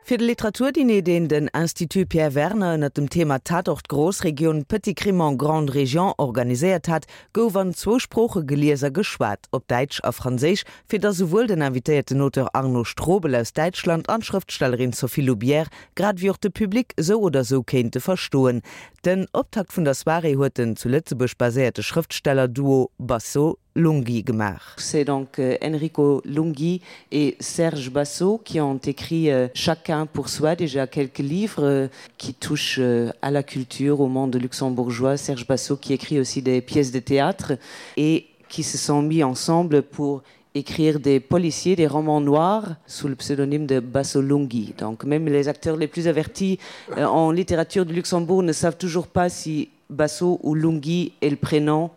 Fir de Literaturdiner, deen den Institut Pierre Werner ënnert dem Thema Tatort Großregion, Petit Crime en Grande Région organiséiert hat, gouf an zwou Sprooche gelies a geschwat, op Däitsch a Franséisch, fir datt souwuel den invitéierten Auteur Arno Strobel aus Däitschland an d'Schrëftstellerin Sophie Loubière, grad ewéi och de Public sou oder sou kéinte verstoen. Den Optakt vun der Soirée huet den zu Lëtzebuerg baséierte Schrëftsteller-Duo Basso Lunghi gemaach. C'est donc euh, Enrico Lunghi et Serge Basso qui ont écrit euh, chacun pour soi déjà quelques livres euh, qui touchent euh, à la culture au monde luxembourgeois Serge Basso qui écrit aussi des pièces de théâtre et qui se sont mis ensemble pour écrire des policiers des romans noirs sous le pseudonyme de Basso Lunghi. Donc même les acteurs les plus avertis euh, en littérature du Luxembourg ne savent toujours pas si Basso ou Lunghi est le prénom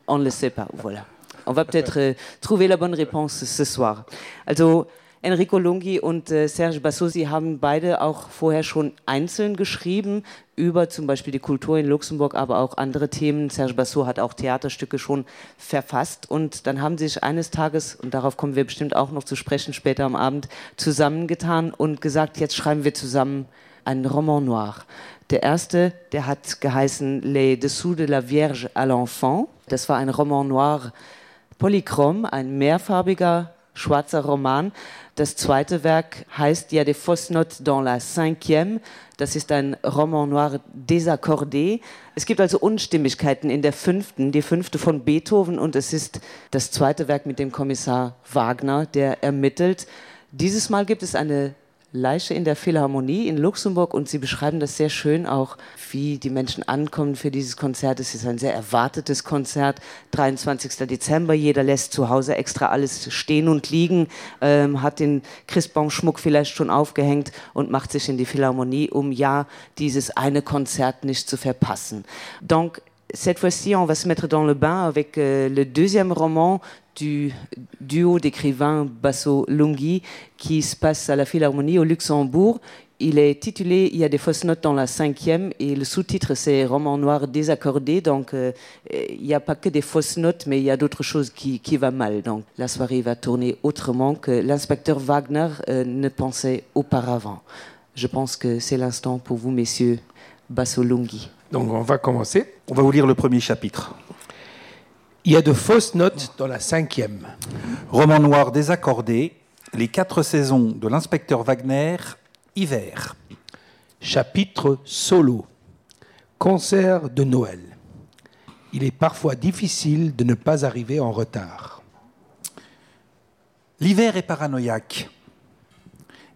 on ne le sait pas voilà on va peut-être euh, trouver la bonne réponse ce soir also Enrico Lunghi und äh, Serge Bassosi haben beide auch vorher schon einzeln geschrieben über zum Beispiel die Kultur in Luxemburg, aber auch andere Themen. Serge Basso hat auch Theaterstücke schon verfasst und dann haben sie sich eines Tages und darauf kommen wir bestimmt auch noch zu sprechen später am Abend zusammengetan und gesagt, jetzt schreiben wir zusammen einen Roman noir. Der erste, der hat geheißen Les dessous de la Vierge à l'enfant. Das war ein Roman noir polychrom, ein mehrfarbiger schwarzer Roman. Das zweite Werk heißt ja des fausses notes dans la cinquième. Das ist ein Roman noir désaccordé. Es gibt also Unstimmigkeiten in der fünften, die fünfte von Beethoven und es ist das zweite Werk mit dem Kommissar Wagner, der ermittelt. Dieses Mal gibt es eine Leiche in der Philharmonie in Luxemburg und sie beschreiben das sehr schön auch, wie die Menschen ankommen für dieses Konzert. Es ist ein sehr erwartetes Konzert, 23. Dezember. Jeder lässt zu Hause extra alles stehen und liegen, ähm, hat den Christbaumschmuck vielleicht schon aufgehängt und macht sich in die Philharmonie, um ja dieses eine Konzert nicht zu verpassen. Donc, cette fois-ci, on va se mettre dans le bain avec euh, le deuxième roman du duo d'écrivains Basso Lunghi qui se passe à la Philharmonie au Luxembourg. Il est titulé Il y a des fausses notes dans la cinquième et le sous-titre c'est roman noir désaccordé donc euh, il n'y a pas que des fausses notes mais il y a d'autres choses qui, qui va mal donc la soirée va tourner autrement que l'inspecteur Wagner euh, ne pensait auparavant. Je pense que c'est l'instant pour vous messieurs Basso Lunghi. Donc on va commencer. On va vous lire le premier chapitre. Il y a de fausses notes dans la cinquième. Roman noir désaccordé, les quatre saisons de l'inspecteur Wagner, hiver. Chapitre solo. Concert de Noël. Il est parfois difficile de ne pas arriver en retard. L'hiver est paranoïaque.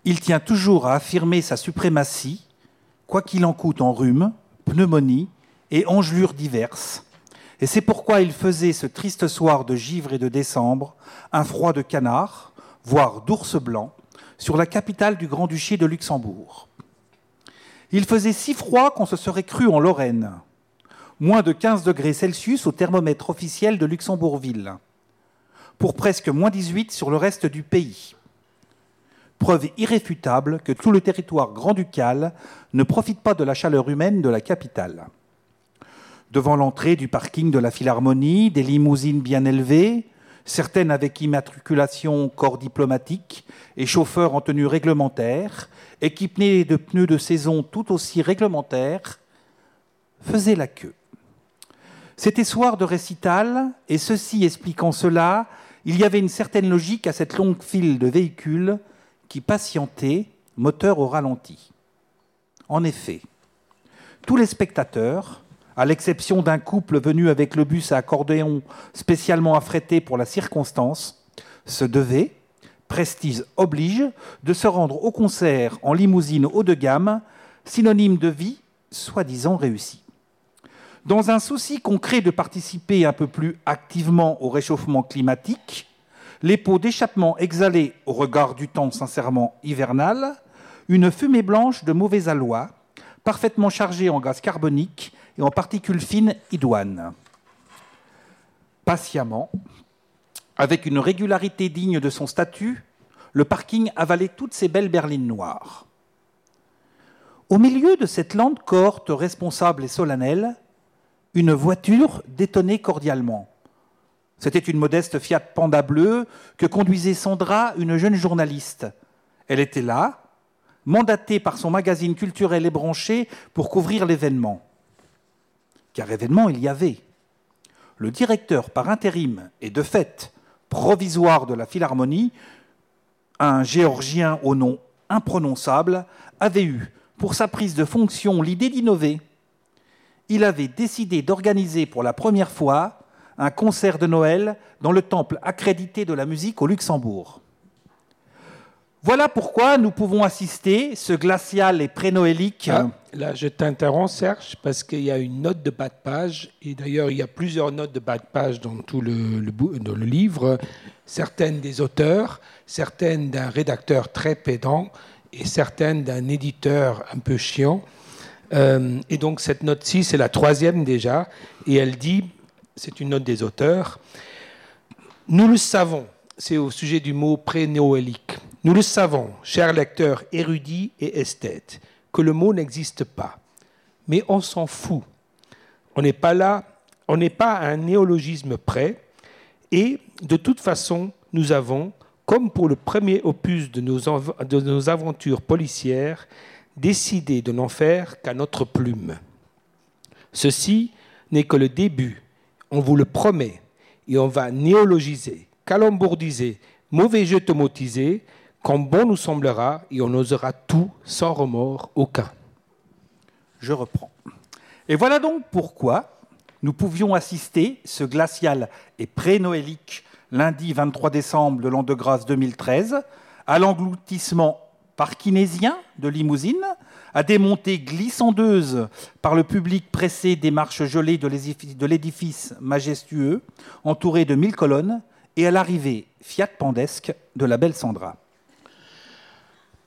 Il tient toujours à affirmer sa suprématie, quoi qu'il en coûte en rhume, pneumonie et engelures diverses. Et c'est pourquoi il faisait ce triste soir de givre et de décembre un froid de canard, voire d'ours blanc, sur la capitale du grand-duché de Luxembourg. Il faisait si froid qu'on se serait cru en Lorraine, moins de 15 degrés Celsius au thermomètre officiel de Luxembourgville, pour presque moins 18 sur le reste du pays. Preuve irréfutable que tout le territoire grand-ducal ne profite pas de la chaleur humaine de la capitale. Devant l'entrée du parking de la Philharmonie, des limousines bien élevées, certaines avec immatriculation corps diplomatique et chauffeurs en tenue réglementaire, équipés de pneus de saison tout aussi réglementaires, faisaient la queue. C'était soir de récital et ceci expliquant cela, il y avait une certaine logique à cette longue file de véhicules qui patientait, moteur au ralenti. En effet, tous les spectateurs, à l'exception d'un couple venu avec le bus à accordéon spécialement affrété pour la circonstance, se devaient, prestige oblige, de se rendre au concert en limousine haut de gamme, synonyme de vie soi-disant réussie. Dans un souci concret de participer un peu plus activement au réchauffement climatique, les pots d'échappement exhalés au regard du temps sincèrement hivernal, une fumée blanche de mauvais aloi, parfaitement chargée en gaz carbonique et en particules fines idoines. Patiemment, avec une régularité digne de son statut, le parking avalait toutes ses belles berlines noires. Au milieu de cette lente cohorte responsable et solennelle, une voiture détonnait cordialement. C'était une modeste Fiat Panda bleue que conduisait Sandra, une jeune journaliste. Elle était là, mandaté par son magazine culturel ébranché pour couvrir l'événement. Car événement il y avait. Le directeur par intérim et de fait provisoire de la Philharmonie, un Géorgien au nom imprononçable, avait eu, pour sa prise de fonction, l'idée d'innover. Il avait décidé d'organiser pour la première fois un concert de Noël dans le temple accrédité de la musique au Luxembourg. Voilà pourquoi nous pouvons assister ce glacial et prénoélique. Ah, là, je t'interromps, Serge, parce qu'il y a une note de bas de page, et d'ailleurs, il y a plusieurs notes de bas de page dans tout le, le, dans le livre, certaines des auteurs, certaines d'un rédacteur très pédant et certaines d'un éditeur un peu chiant. Euh, et donc, cette note-ci, c'est la troisième déjà, et elle dit, c'est une note des auteurs, Nous le savons, c'est au sujet du mot prénoélique. Nous le savons, chers lecteurs érudits et esthètes, que le mot n'existe pas. Mais on s'en fout. On n'est pas là, on n'est pas à un néologisme près, et de toute façon, nous avons, comme pour le premier opus de nos, de nos aventures policières, décidé de n'en faire qu'à notre plume. Ceci n'est que le début, on vous le promet, et on va néologiser, calembourdiser, mauvais jeu tomotisé, quand bon nous semblera et on osera tout sans remords aucun. Je reprends. Et voilà donc pourquoi nous pouvions assister ce glacial et prénoélique lundi 23 décembre de l'an de grâce 2013 à l'engloutissement parkinésien de limousine, à des montées glissandeuses par le public pressé des marches gelées de l'édifice majestueux entouré de mille colonnes et à l'arrivée fiat pandesque de la belle Sandra.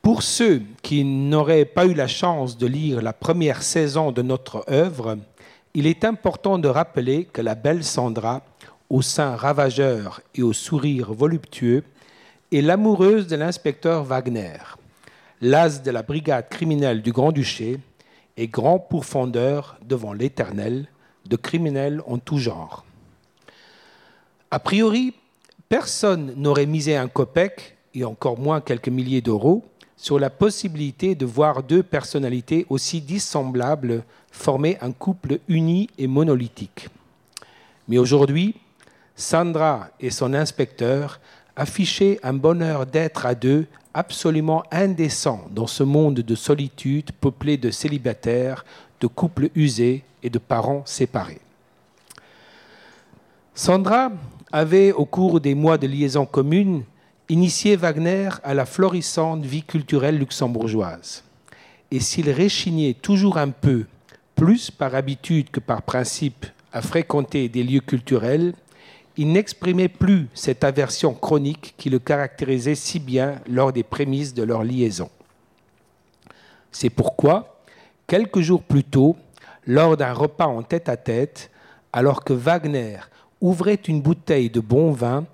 Pour ceux qui n'auraient pas eu la chance de lire la première saison de notre œuvre, il est important de rappeler que la belle Sandra, au sein ravageur et au sourire voluptueux, est l'amoureuse de l'inspecteur Wagner, l'as de la brigade criminelle du Grand-Duché et grand pourfendeur devant l'Éternel de criminels en tout genre. A priori, personne n'aurait misé un copec et encore moins quelques milliers d'euros sur la possibilité de voir deux personnalités aussi dissemblables former un couple uni et monolithique. Mais aujourd'hui, Sandra et son inspecteur affichaient un bonheur d'être à deux absolument indécent dans ce monde de solitude peuplé de célibataires, de couples usés et de parents séparés. Sandra avait, au cours des mois de liaison commune, initié Wagner à la florissante vie culturelle luxembourgeoise. Et s'il réchignait toujours un peu, plus par habitude que par principe, à fréquenter des lieux culturels, il n'exprimait plus cette aversion chronique qui le caractérisait si bien lors des prémices de leur liaison. C'est pourquoi, quelques jours plus tôt, lors d'un repas en tête-à-tête, alors que Wagner ouvrait une bouteille de bon vin,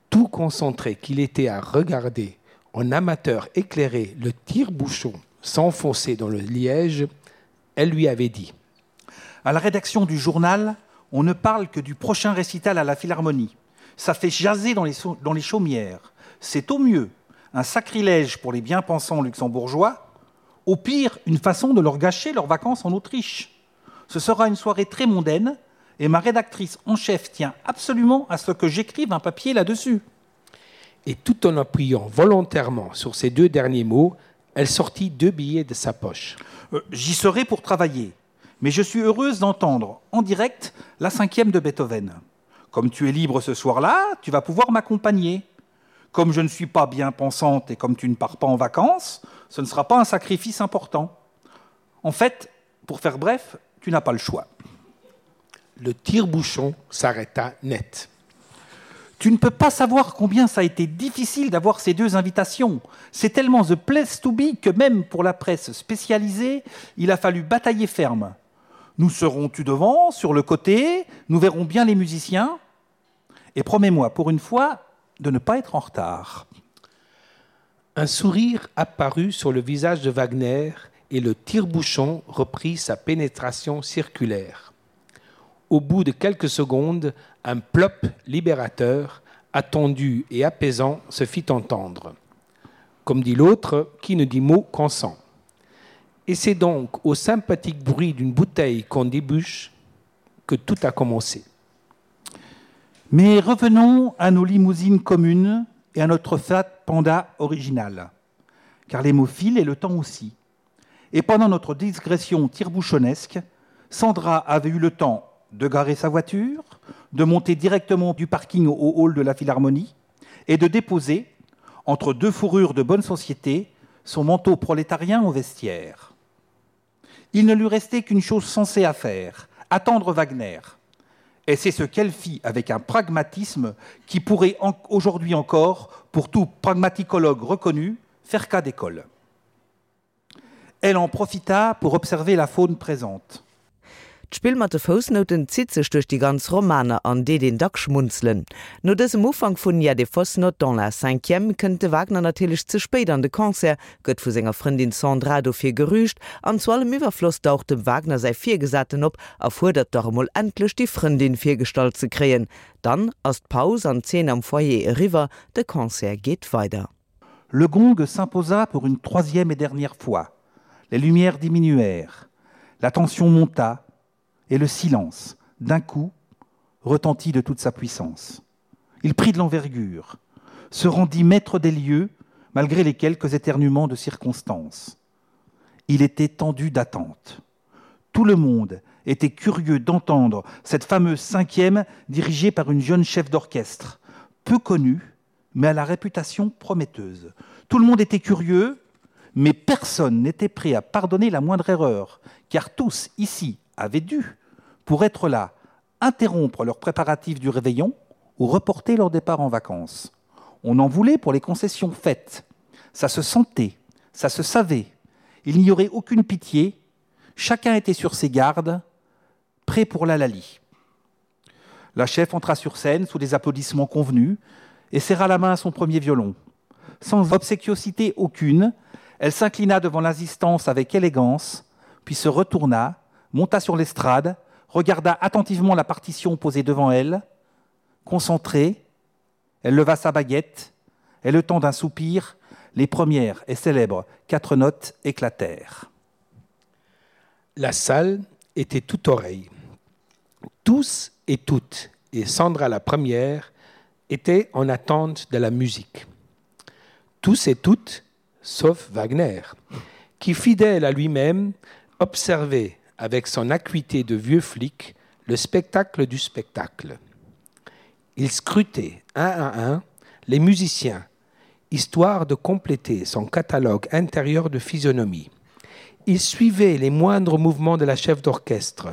tout concentré qu'il était à regarder en amateur éclairé le tire-bouchon s'enfoncer dans le liège, elle lui avait dit: À la rédaction du journal, on ne parle que du prochain récital à la Philharmonie. Ça fait jaser dans les, dans les chaumières. C'est au mieux un sacrilège pour les bien-pensants luxembourgeois, au pire une façon de leur gâcher leurs vacances en Autriche. Ce sera une soirée très mondaine et ma rédactrice en chef tient absolument à ce que j'écrive un papier là-dessus. Et tout en appuyant volontairement sur ces deux derniers mots, elle sortit deux billets de sa poche. Euh, J'y serai pour travailler, mais je suis heureuse d'entendre en direct la cinquième de Beethoven. Comme tu es libre ce soir-là, tu vas pouvoir m'accompagner. Comme je ne suis pas bien pensante et comme tu ne pars pas en vacances, ce ne sera pas un sacrifice important. En fait, pour faire bref, tu n'as pas le choix. Le tire-bouchon s'arrêta net. Tu ne peux pas savoir combien ça a été difficile d'avoir ces deux invitations. C'est tellement the place to be que même pour la presse spécialisée, il a fallu batailler ferme. Nous serons tu devant, sur le côté, nous verrons bien les musiciens. Et promets-moi pour une fois de ne pas être en retard. Un sourire apparut sur le visage de Wagner et le tire-bouchon reprit sa pénétration circulaire. Au bout de quelques secondes, un plop libérateur, attendu et apaisant, se fit entendre. Comme dit l'autre, qui ne dit mot consent. Et c'est donc au sympathique bruit d'une bouteille qu'on débouche que tout a commencé. Mais revenons à nos limousines communes et à notre fat panda original, car les mots filent et le temps aussi. Et pendant notre digression tire-bouchonnesque, Sandra avait eu le temps de garer sa voiture, de monter directement du parking au hall de la Philharmonie et de déposer, entre deux fourrures de bonne société, son manteau prolétarien au vestiaire. Il ne lui restait qu'une chose sensée à faire, attendre Wagner. Et c'est ce qu'elle fit avec un pragmatisme qui pourrait aujourd'hui encore, pour tout pragmaticologue reconnu, faire cas d'école. Elle en profita pour observer la faune présente. D'Spill mat de Foussnouten zitt sech duerch déi ganz Romaner an deet een dack schmunzelen. No dësem Ufank vun Il y a des fausses notes dans la cinquième kënnt de Wagner natierlech ze spéit an de Concert, gëtt vu senger Frëndin Sandra dofir gerügt an zu allem Iwwerfloss daucht dem Wagner säi Virgesaten op a fuerdert dach emol endlech déi Frëndin virgestallt ze kréien. Dann ass d'Paus an d'Zeen am Foyer eriwwer, de Concert geet weider. Le gong s'imposa pour une troisième et dernière fois. Les lumières diminuèrent, la tension monta et le silence, d'un coup, retentit de toute sa puissance. Il prit de l'envergure, se rendit maître des lieux malgré les quelques éternuements de circonstances. Il était tendu d'attente. Tout le monde était curieux d'entendre cette fameuse cinquième dirigée par une jeune chef d'orchestre, peu connue, mais à la réputation prometteuse. Tout le monde était curieux, mais personne n'était prêt à pardonner la moindre erreur, car tous ici avaient dû, pour être là, interrompre leurs préparatifs du réveillon ou reporter leur départ en vacances. On en voulait pour les concessions faites. Ça se sentait, ça se savait. Il n'y aurait aucune pitié. Chacun était sur ses gardes, prêt pour la lalie. La chef entra sur scène sous des applaudissements convenus et serra la main à son premier violon. Sans obséquiosité aucune, elle s'inclina devant l'assistance avec élégance, puis se retourna, monta sur l'estrade, regarda attentivement la partition posée devant elle, concentrée, elle leva sa baguette, et le temps d'un soupir, les premières et célèbres quatre notes éclatèrent. La salle était tout oreille. Tous et toutes, et Sandra la première, étaient en attente de la musique. Tous et toutes, sauf Wagner, qui, fidèle à lui-même, observait avec son acuité de vieux flic le spectacle du spectacle. Il scrutait un à un les musiciens, histoire de compléter son catalogue intérieur de physionomie. Il suivait les moindres mouvements de la chef d'orchestre.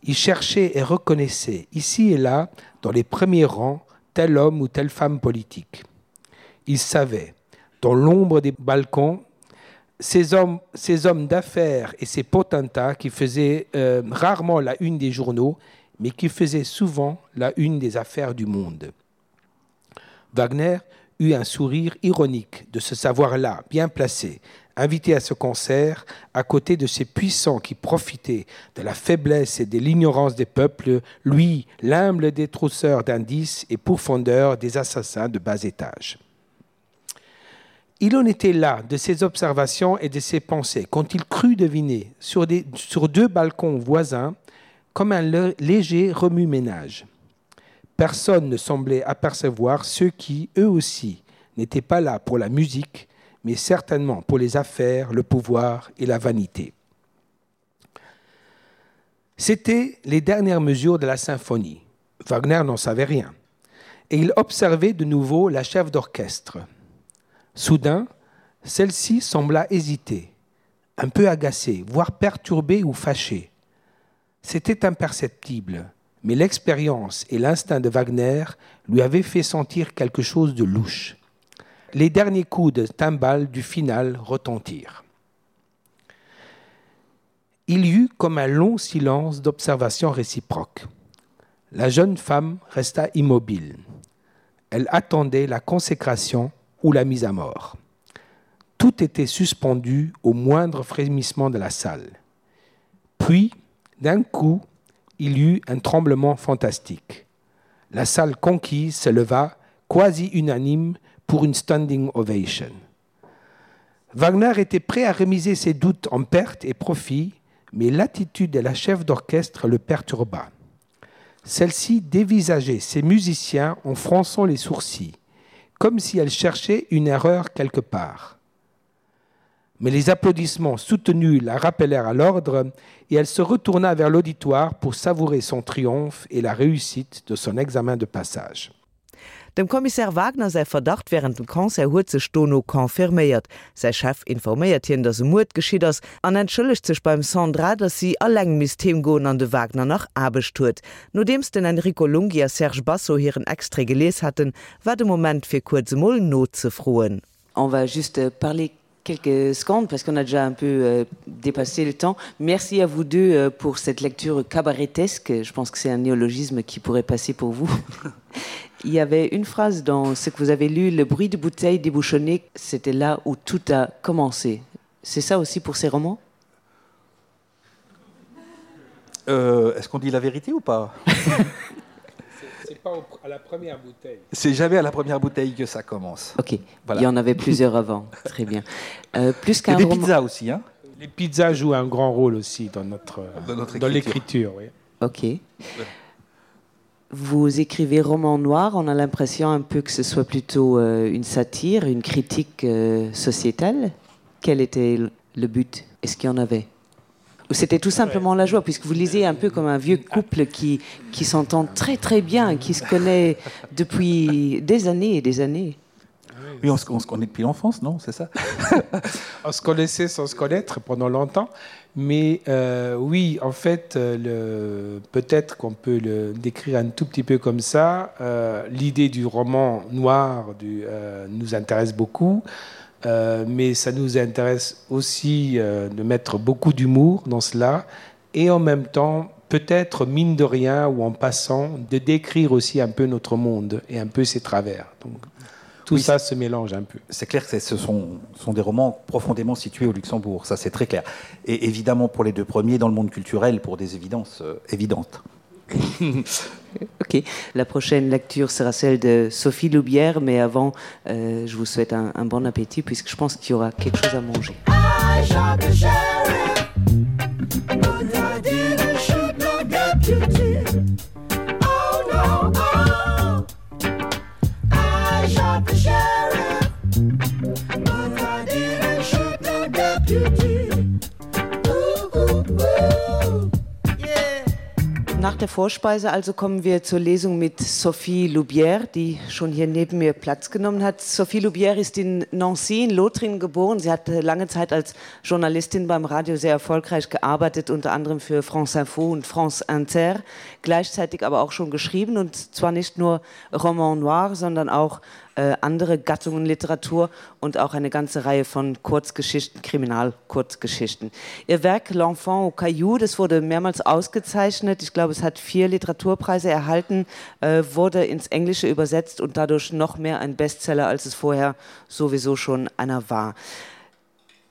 Il cherchait et reconnaissait ici et là, dans les premiers rangs, tel homme ou telle femme politique. Il savait, dans l'ombre des balcons, ces hommes, ces hommes d'affaires et ces potentats qui faisaient euh, rarement la une des journaux, mais qui faisaient souvent la une des affaires du monde. Wagner eut un sourire ironique de ce savoir-là, bien placé, invité à ce concert, à côté de ces puissants qui profitaient de la faiblesse et de l'ignorance des peuples, lui, l'humble détrousseur d'indices et pourfondeur des assassins de bas étage. Il en était là de ses observations et de ses pensées quand il crut deviner sur, des, sur deux balcons voisins comme un léger remue-ménage. Personne ne semblait apercevoir ceux qui, eux aussi, n'étaient pas là pour la musique, mais certainement pour les affaires, le pouvoir et la vanité. C'étaient les dernières mesures de la symphonie. Wagner n'en savait rien. Et il observait de nouveau la chef d'orchestre. Soudain, celle-ci sembla hésiter, un peu agacée, voire perturbée ou fâchée. C'était imperceptible, mais l'expérience et l'instinct de Wagner lui avaient fait sentir quelque chose de louche. Les derniers coups de timbale du final retentirent. Il y eut comme un long silence d'observation réciproque. La jeune femme resta immobile. Elle attendait la consécration ou la mise à mort. Tout était suspendu au moindre frémissement de la salle. Puis, d'un coup, il y eut un tremblement fantastique. La salle conquise se leva, quasi unanime, pour une standing ovation. Wagner était prêt à remiser ses doutes en perte et profit, mais l'attitude de la chef d'orchestre le perturba. Celle-ci dévisageait ses musiciens en fronçant les sourcils, comme si elle cherchait une erreur quelque part. Mais les applaudissements soutenus la rappelèrent à l'ordre et elle se retourna vers l'auditoire pour savourer son triomphe et la réussite de son examen de passage. Dem Kommissär Wagner säi Verdacht wärend dem Concert huet sech dono confirméiert. Säi Chef informéiert hien, datt e Muerd geschitt ass an entschëllegt sech beim Sandra, datt si alleng misst heem goen an de Wagner nach Aarbecht huet. Nodeems den Enrico Lunghi a Serge Basso hiren Extrait gelies haten, war de Moment fir kuerz emol nozefroen. On va juste parler quelques secondes parce qu'on a déjà un peu euh, dépassé le temps. Merci à vous deux euh, pour cette lecture cabaretesque. Je pense que c'est un néologisme qui pourrait passer pour vous. Il y avait une phrase dans ce que vous avez lu, le bruit de bouteilles débouchonnées, c'était là où tout a commencé. C'est ça aussi pour ces romans euh, Est-ce qu'on dit la vérité ou pas C'est pas au, à la première bouteille. C'est jamais à la première bouteille que ça commence. Ok. Voilà. Il y en avait plusieurs avant. Très bien. Euh, plus qu'un des roman... pizzas aussi hein. Les pizzas jouent un grand rôle aussi dans notre dans, notre dans l'écriture. Oui. Ok. Ouais. Vous écrivez roman noir, on a l'impression un peu que ce soit plutôt euh, une satire, une critique euh, sociétale. Quel était le but Est-ce qu'il y en avait Ou c'était tout simplement la joie, puisque vous lisez un peu comme un vieux couple qui, qui s'entend très très bien, qui se connaît depuis des années et des années. Oui, on se, on se connaît depuis l'enfance, non c'est ça On se connaissait sans se connaître pendant longtemps. Mais euh, oui, en fait, euh, peut-être qu'on peut le décrire un tout petit peu comme ça. Euh, L'idée du roman noir du, euh, nous intéresse beaucoup. Euh, mais ça nous intéresse aussi euh, de mettre beaucoup d'humour dans cela et en même temps peut-être mine de rien ou en passant de décrire aussi un peu notre monde et un peu ses travers. Donc tout oui, ça se mélange un peu. C'est clair que ce sont, sont des romans profondément situés au Luxembourg, ça c'est très clair. Et évidemment pour les deux premiers dans le monde culturel pour des évidences euh, évidentes. Ok, la prochaine lecture sera celle de Sophie Loubière, mais avant, euh, je vous souhaite un, un bon appétit puisque je pense qu'il y aura quelque chose à manger. I shot the sheriff, but I didn't shoot no deputy. Oh no, oh. I shot the sheriff, but I didn't shoot no deputy. Ooh, ooh, ooh. Nach der Vorspeise also kommen wir zur Lesung mit Sophie Loubière, die schon hier neben mir Platz genommen hat. Sophie Loubière ist in Nancy in Lothringen geboren. Sie hat lange Zeit als Journalistin beim Radio sehr erfolgreich gearbeitet, unter anderem für France Info und France Inter, gleichzeitig aber auch schon geschrieben und zwar nicht nur Roman noir, sondern auch äh, andere Gattungen Literatur und auch eine ganze Reihe von Kurzgeschichten, Kriminalkurzgeschichten. Ihr Werk L'enfant au Caillou, das wurde mehrmals ausgezeichnet. Ich glaube, es hat vier Literaturpreise erhalten, äh, wurde ins Englische übersetzt und dadurch noch mehr ein Bestseller, als es vorher sowieso schon einer war.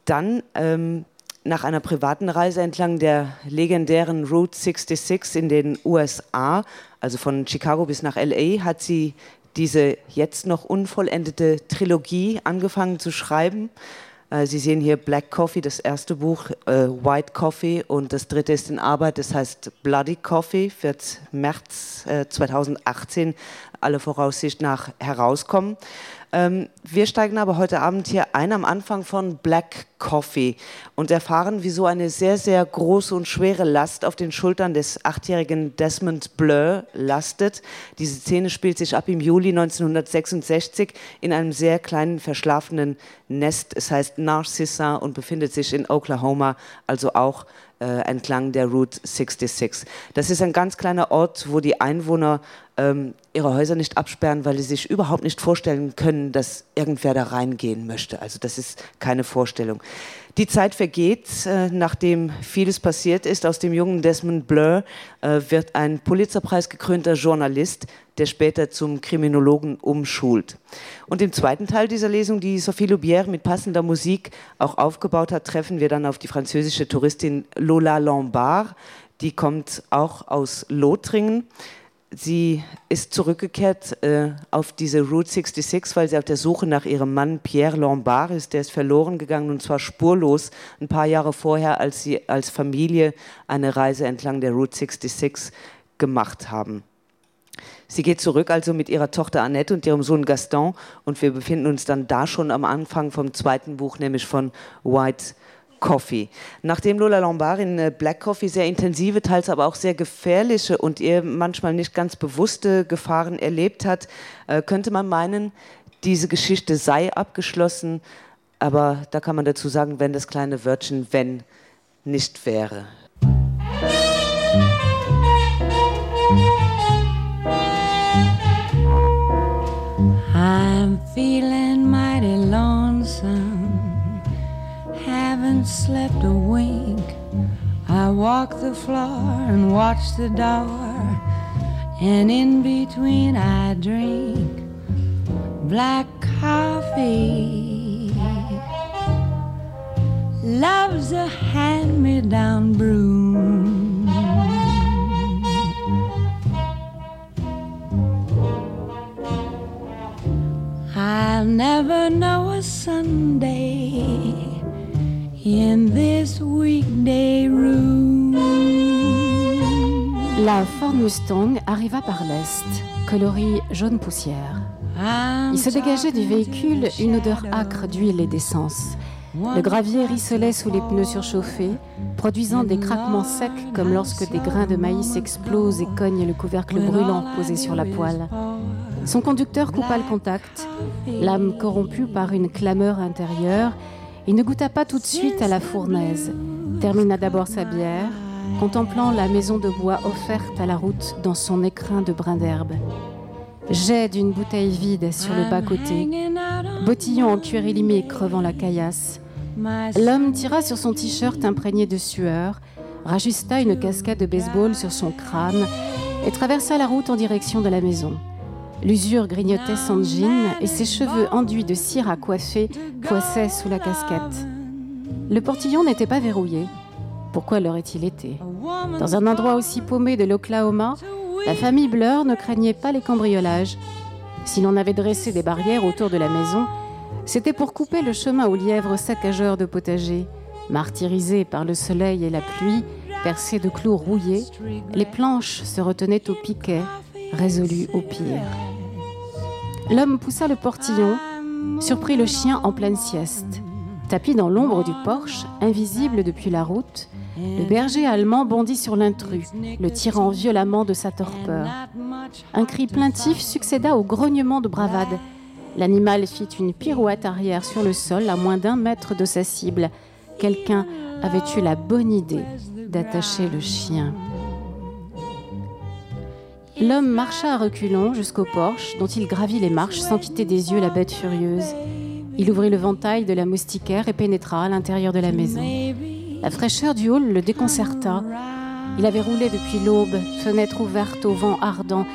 Dann ähm, nach einer privaten Reise entlang der legendären Route 66 in den USA, also von Chicago bis nach LA, hat sie diese jetzt noch unvollendete Trilogie angefangen zu schreiben. Äh, Sie sehen hier Black Coffee, das erste Buch, äh, White Coffee und das dritte ist in Arbeit, das heißt Bloody Coffee, wird März äh, 2018 alle Voraussicht nach herauskommen. Ähm, wir steigen aber heute Abend hier ein am Anfang von Black Coffee und erfahren, wieso eine sehr, sehr große und schwere Last auf den Schultern des achtjährigen Desmond Blur lastet. Diese Szene spielt sich ab im Juli 1966 in einem sehr kleinen verschlafenen Nest. Es heißt Narcissa und befindet sich in Oklahoma, also auch äh, entlang der Route 66. Das ist ein ganz kleiner Ort, wo die Einwohner ähm, ihre Häuser nicht absperren, weil sie sich überhaupt nicht vorstellen können, dass irgendwer da reingehen möchte. Also das ist keine Vorstellung. Die Zeit vergeht, äh, nachdem vieles passiert ist. Aus dem jungen Desmond Blur äh, wird ein Pulitzerpreis gekrönter Journalist, der später zum Kriminologen umschult. Und im zweiten Teil dieser Lesung, die Sophie Loubière mit passender Musik auch aufgebaut hat, treffen wir dann auf die französische Touristin Lola Lombard. Die kommt auch aus Lothringen. Sie ist zurückgekehrt äh, auf diese Route 66, weil sie auf der Suche nach ihrem Mann Pierre Lombard ist. Der ist verloren gegangen und zwar spurlos ein paar Jahre vorher, als sie als Familie eine Reise entlang der Route 66 gemacht haben. Sie geht zurück also mit ihrer Tochter Annette und ihrem Sohn Gaston und wir befinden uns dann da schon am Anfang vom zweiten Buch, nämlich von White Coffee. Nachdem Lola Lombard in äh, Black Coffee sehr intensive, teils aber auch sehr gefährliche und ihr manchmal nicht ganz bewusste Gefahren erlebt hat, äh, könnte man meinen, diese Geschichte sei abgeschlossen, aber da kann man dazu sagen, wenn das kleine Wörtchen wenn nicht wäre. I'm feeling mighty lonesome Haven't slept a wink I walk the floor and watch the door And in between I drink black coffee Love's a hand-me-down broom I'll never know a Sunday in this weekday room. La Ford Mustang arriva par l'est, coloris jaune poussière. Il se dégageait du véhicule une odeur âcre d'huile et d'essence. Le gravier rissolait sous les pneus surchauffés, produisant des craquements secs comme lorsque des grains de maïs explosent et cognent le couvercle brûlant posé sur la poêle. Son conducteur coupa le contact, l'âme corrompue par une clameur intérieure, il ne goûta pas tout de suite à la fournaise, termina d'abord sa bière, contemplant la maison de bois offerte à la route dans son écrin de brins d'herbe. Jet d'une bouteille vide sur le bas-côté, botillon en cuir élimé crevant la caillasse. L'homme tira sur son t-shirt imprégné de sueur, rajusta une casquette de baseball sur son crâne et traversa la route en direction de la maison. L'usure grignotait son jean et ses cheveux enduits de cire à coiffer poissaient sous la casquette. Le portillon n'était pas verrouillé. Pourquoi l'aurait-il été Dans un endroit aussi paumé de l'Oklahoma, la famille Bleur ne craignait pas les cambriolages. Si l'on avait dressé des barrières autour de la maison, c'était pour couper le chemin aux lièvres saccageurs de potagers. Martyrisés par le soleil et la pluie, percés de clous rouillés, les planches se retenaient au piquet, résolues au pire. L'homme poussa le portillon, surprit le chien en pleine sieste. Tapi dans l'ombre du porche, invisible depuis la route, le berger allemand bondit sur l'intrus, le tirant violemment de sa torpeur. Un cri plaintif succéda au grognement de bravade. L'animal fit une pirouette arrière sur le sol à moins d'un mètre de sa cible. Quelqu'un avait eu la bonne idée d'attacher le chien. L'homme marcha à reculons jusqu'au porche dont il gravit les marches sans quitter des yeux la bête furieuse. Il ouvrit le ventail de la moustiquaire et pénétra à l'intérieur de la maison. La fraîcheur du hall le déconcerta. Il avait roulé depuis l'aube, fenêtre ouverte au vent ardent,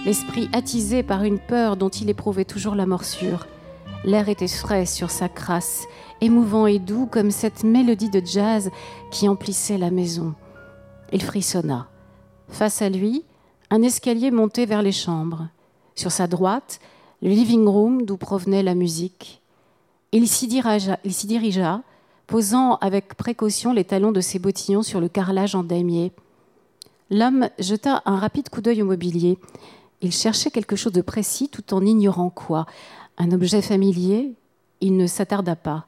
l'esprit attisé par une peur dont il éprouvait toujours la morsure. L'air était frais sur sa crasse, émouvant et doux comme cette mélodie de jazz qui emplissait la maison. Il frissonna. Face à lui, un escalier montait vers les chambres. Sur sa droite, le living room d'où provenait la musique. Il s'y dirigea, dirigea, posant avec précaution les talons de ses bottillons sur le carrelage en damier. L'homme jeta un rapide coup d'œil au mobilier. Il cherchait quelque chose de précis tout en ignorant quoi. Un objet familier, il ne s'attarda pas.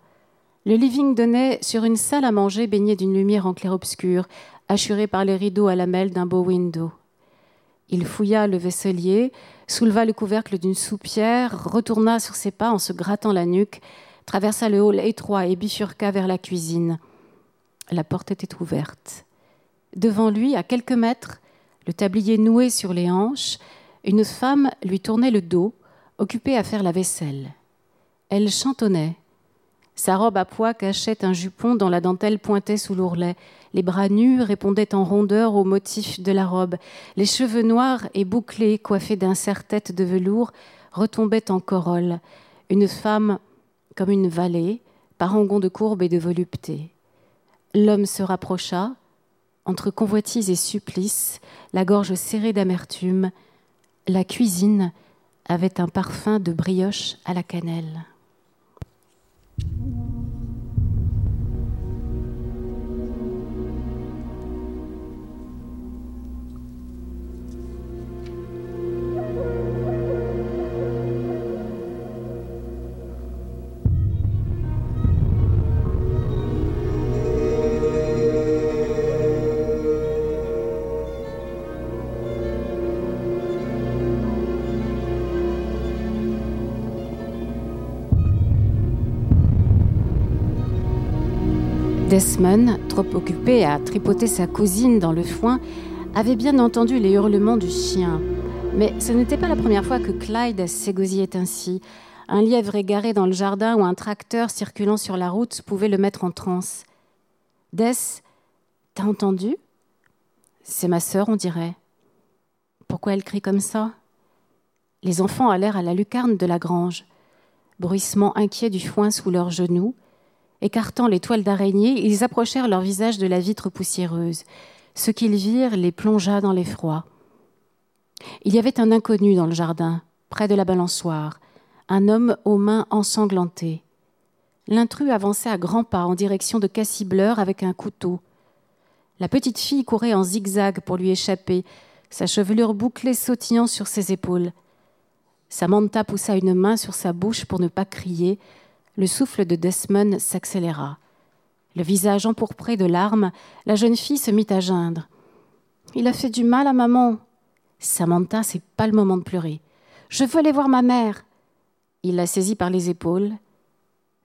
Le living donnait sur une salle à manger baignée d'une lumière en clair-obscur, assurée par les rideaux à lamelles d'un beau window. Il fouilla le vaisselier, souleva le couvercle d'une soupière, retourna sur ses pas en se grattant la nuque, traversa le hall étroit et bifurqua vers la cuisine. La porte était ouverte. Devant lui, à quelques mètres, le tablier noué sur les hanches, une femme lui tournait le dos, occupée à faire la vaisselle. Elle chantonnait. Sa robe à pois cachait un jupon dont la dentelle pointait sous l'ourlet. Les bras nus répondaient en rondeur au motif de la robe. Les cheveux noirs et bouclés, coiffés d'un serre-tête de velours, retombaient en corolle. Une femme comme une vallée, parangon de courbe et de volupté. L'homme se rapprocha, entre convoitise et supplice, la gorge serrée d'amertume. La cuisine avait un parfum de brioche à la cannelle. Desmond, trop occupé à tripoter sa cousine dans le foin, avait bien entendu les hurlements du chien. Mais ce n'était pas la première fois que Clyde s'égosillait ainsi. Un lièvre égaré dans le jardin ou un tracteur circulant sur la route pouvait le mettre en transe. Des, t'as entendu C'est ma sœur, on dirait. Pourquoi elle crie comme ça Les enfants allèrent à la lucarne de la grange. Bruissement inquiet du foin sous leurs genoux, écartant les toiles d'araignée, ils approchèrent leur visage de la vitre poussiéreuse. Ce qu'ils virent les plongea dans l'effroi. Il y avait un inconnu dans le jardin, près de la balançoire, un homme aux mains ensanglantées. L'intrus avançait à grands pas en direction de Cassibleur avec un couteau. La petite fille courait en zigzag pour lui échapper, sa chevelure bouclée sautillant sur ses épaules. Samantha poussa une main sur sa bouche pour ne pas crier. Le souffle de Desmond s'accéléra. Le visage empourpré de larmes, la jeune fille se mit à geindre. Il a fait du mal à maman. Samantha, c'est pas le moment de pleurer. Je veux aller voir ma mère. Il la saisit par les épaules.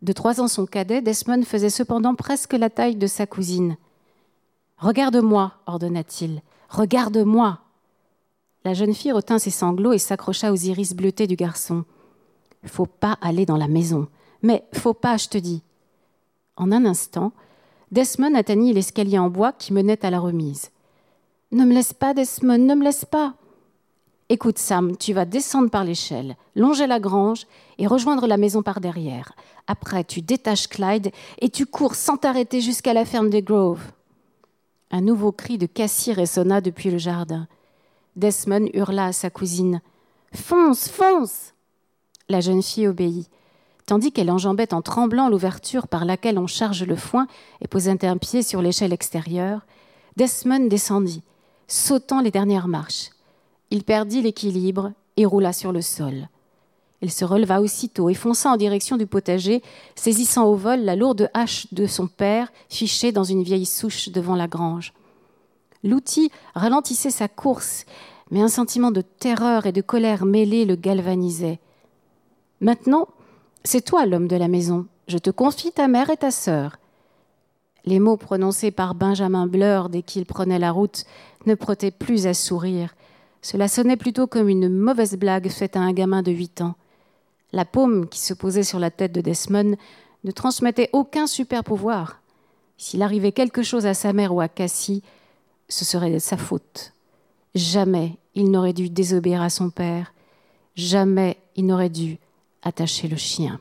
De trois ans son cadet, Desmond faisait cependant presque la taille de sa cousine. Regarde-moi, ordonna-t-il. Regarde-moi. La jeune fille retint ses sanglots et s'accrocha aux iris bleutés du garçon. Faut pas aller dans la maison. Mais faut pas, je te dis. En un instant, Desmond atteignit l'escalier en bois qui menait à la remise. Ne me laisse pas, Desmond, ne me laisse pas. Écoute, Sam, tu vas descendre par l'échelle, longer la grange et rejoindre la maison par derrière. Après, tu détaches Clyde et tu cours sans t'arrêter jusqu'à la ferme des Groves. Un nouveau cri de Cassie résonna depuis le jardin. Desmond hurla à sa cousine: Fonce, fonce La jeune fille obéit. Tandis qu'elle enjambait en tremblant l'ouverture par laquelle on charge le foin et posait un pied sur l'échelle extérieure, Desmond descendit, sautant les dernières marches. Il perdit l'équilibre et roula sur le sol. Il se releva aussitôt et fonça en direction du potager, saisissant au vol la lourde hache de son père fichée dans une vieille souche devant la grange. L'outil ralentissait sa course, mais un sentiment de terreur et de colère mêlée le galvanisait. Maintenant, c'est toi l'homme de la maison. Je te confie ta mère et ta sœur. Les mots prononcés par Benjamin Bleur dès qu'il prenait la route ne prêtaient plus à sourire. Cela sonnait plutôt comme une mauvaise blague faite à un gamin de huit ans. La paume qui se posait sur la tête de Desmond ne transmettait aucun super pouvoir. S'il arrivait quelque chose à sa mère ou à Cassie, ce serait de sa faute. Jamais il n'aurait dû désobéir à son père, jamais il n'aurait dû attacher le chien.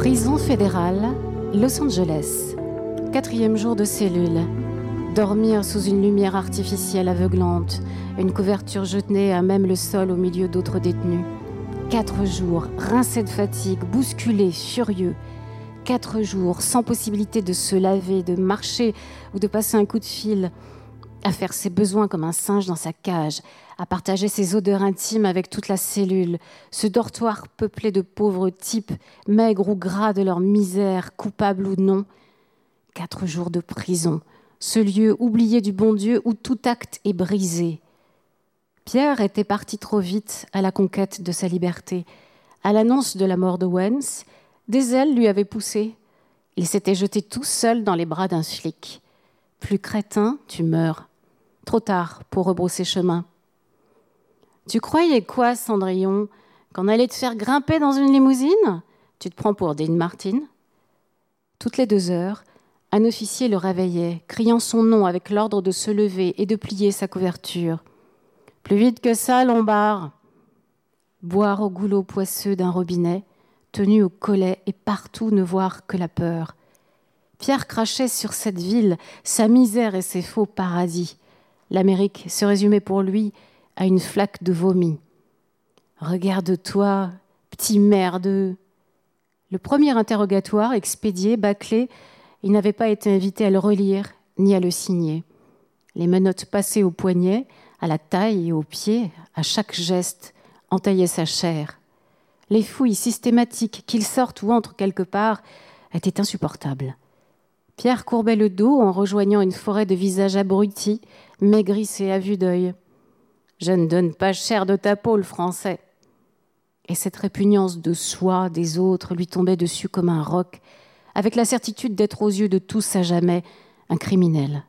Prison fédérale, Los Angeles. Quatrième jour de cellule. Dormir sous une lumière artificielle aveuglante, une couverture jetée à même le sol au milieu d'autres détenus. Quatre jours, rincés de fatigue, bousculés, furieux. Quatre jours, sans possibilité de se laver, de marcher ou de passer un coup de fil, à faire ses besoins comme un singe dans sa cage, à partager ses odeurs intimes avec toute la cellule, ce dortoir peuplé de pauvres types, maigres ou gras de leur misère, coupables ou non. Quatre jours de prison, ce lieu oublié du bon Dieu où tout acte est brisé. Pierre était parti trop vite à la conquête de sa liberté. À l'annonce de la mort de Wens, des ailes lui avaient poussé. Il s'était jeté tout seul dans les bras d'un flic. Plus crétin, tu meurs. Trop tard pour rebrousser chemin. Tu croyais quoi, Cendrillon, qu'on allait te faire grimper dans une limousine Tu te prends pour Dean Martin Toutes les deux heures, un officier le réveillait, criant son nom avec l'ordre de se lever et de plier sa couverture. Plus vite que ça, Lombard Boire au goulot poisseux d'un robinet, tenu au collet et partout ne voir que la peur. Pierre crachait sur cette ville, sa misère et ses faux paradis. L'Amérique se résumait pour lui à une flaque de vomi. Regarde-toi, petit merdeux. Le premier interrogatoire, expédié, bâclé, il n'avait pas été invité à le relire ni à le signer. Les menottes passaient au poignet, à la taille et aux pieds, à chaque geste, entaillaient sa chair. Les fouilles systématiques, qu'il sorte ou entre quelque part, étaient insupportables. Pierre courbait le dos en rejoignant une forêt de visages abrutis, maigrissés à vue d'œil. Je ne donne pas cher de ta peau, le français. Et cette répugnance de soi, des autres, lui tombait dessus comme un roc, avec la certitude d'être aux yeux de tous à jamais un criminel.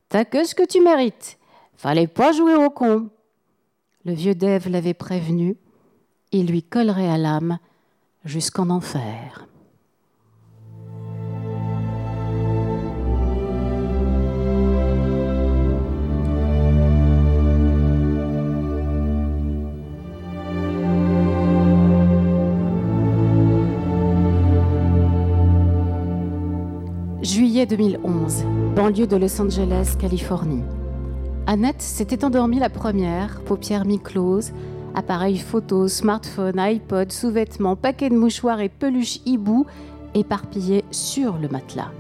T'as que ce que tu mérites. Fallait pas jouer au con. Le vieux Dave l'avait prévenu, il lui collerait à l'âme jusqu'en enfer. Juillet 2011, banlieue de Los Angeles, Californie. Annette s'était endormie la première, paupières mi-closes, appareil photo, smartphone, iPod, sous-vêtements, paquet de mouchoirs et peluches hibou éparpillés sur le matelas.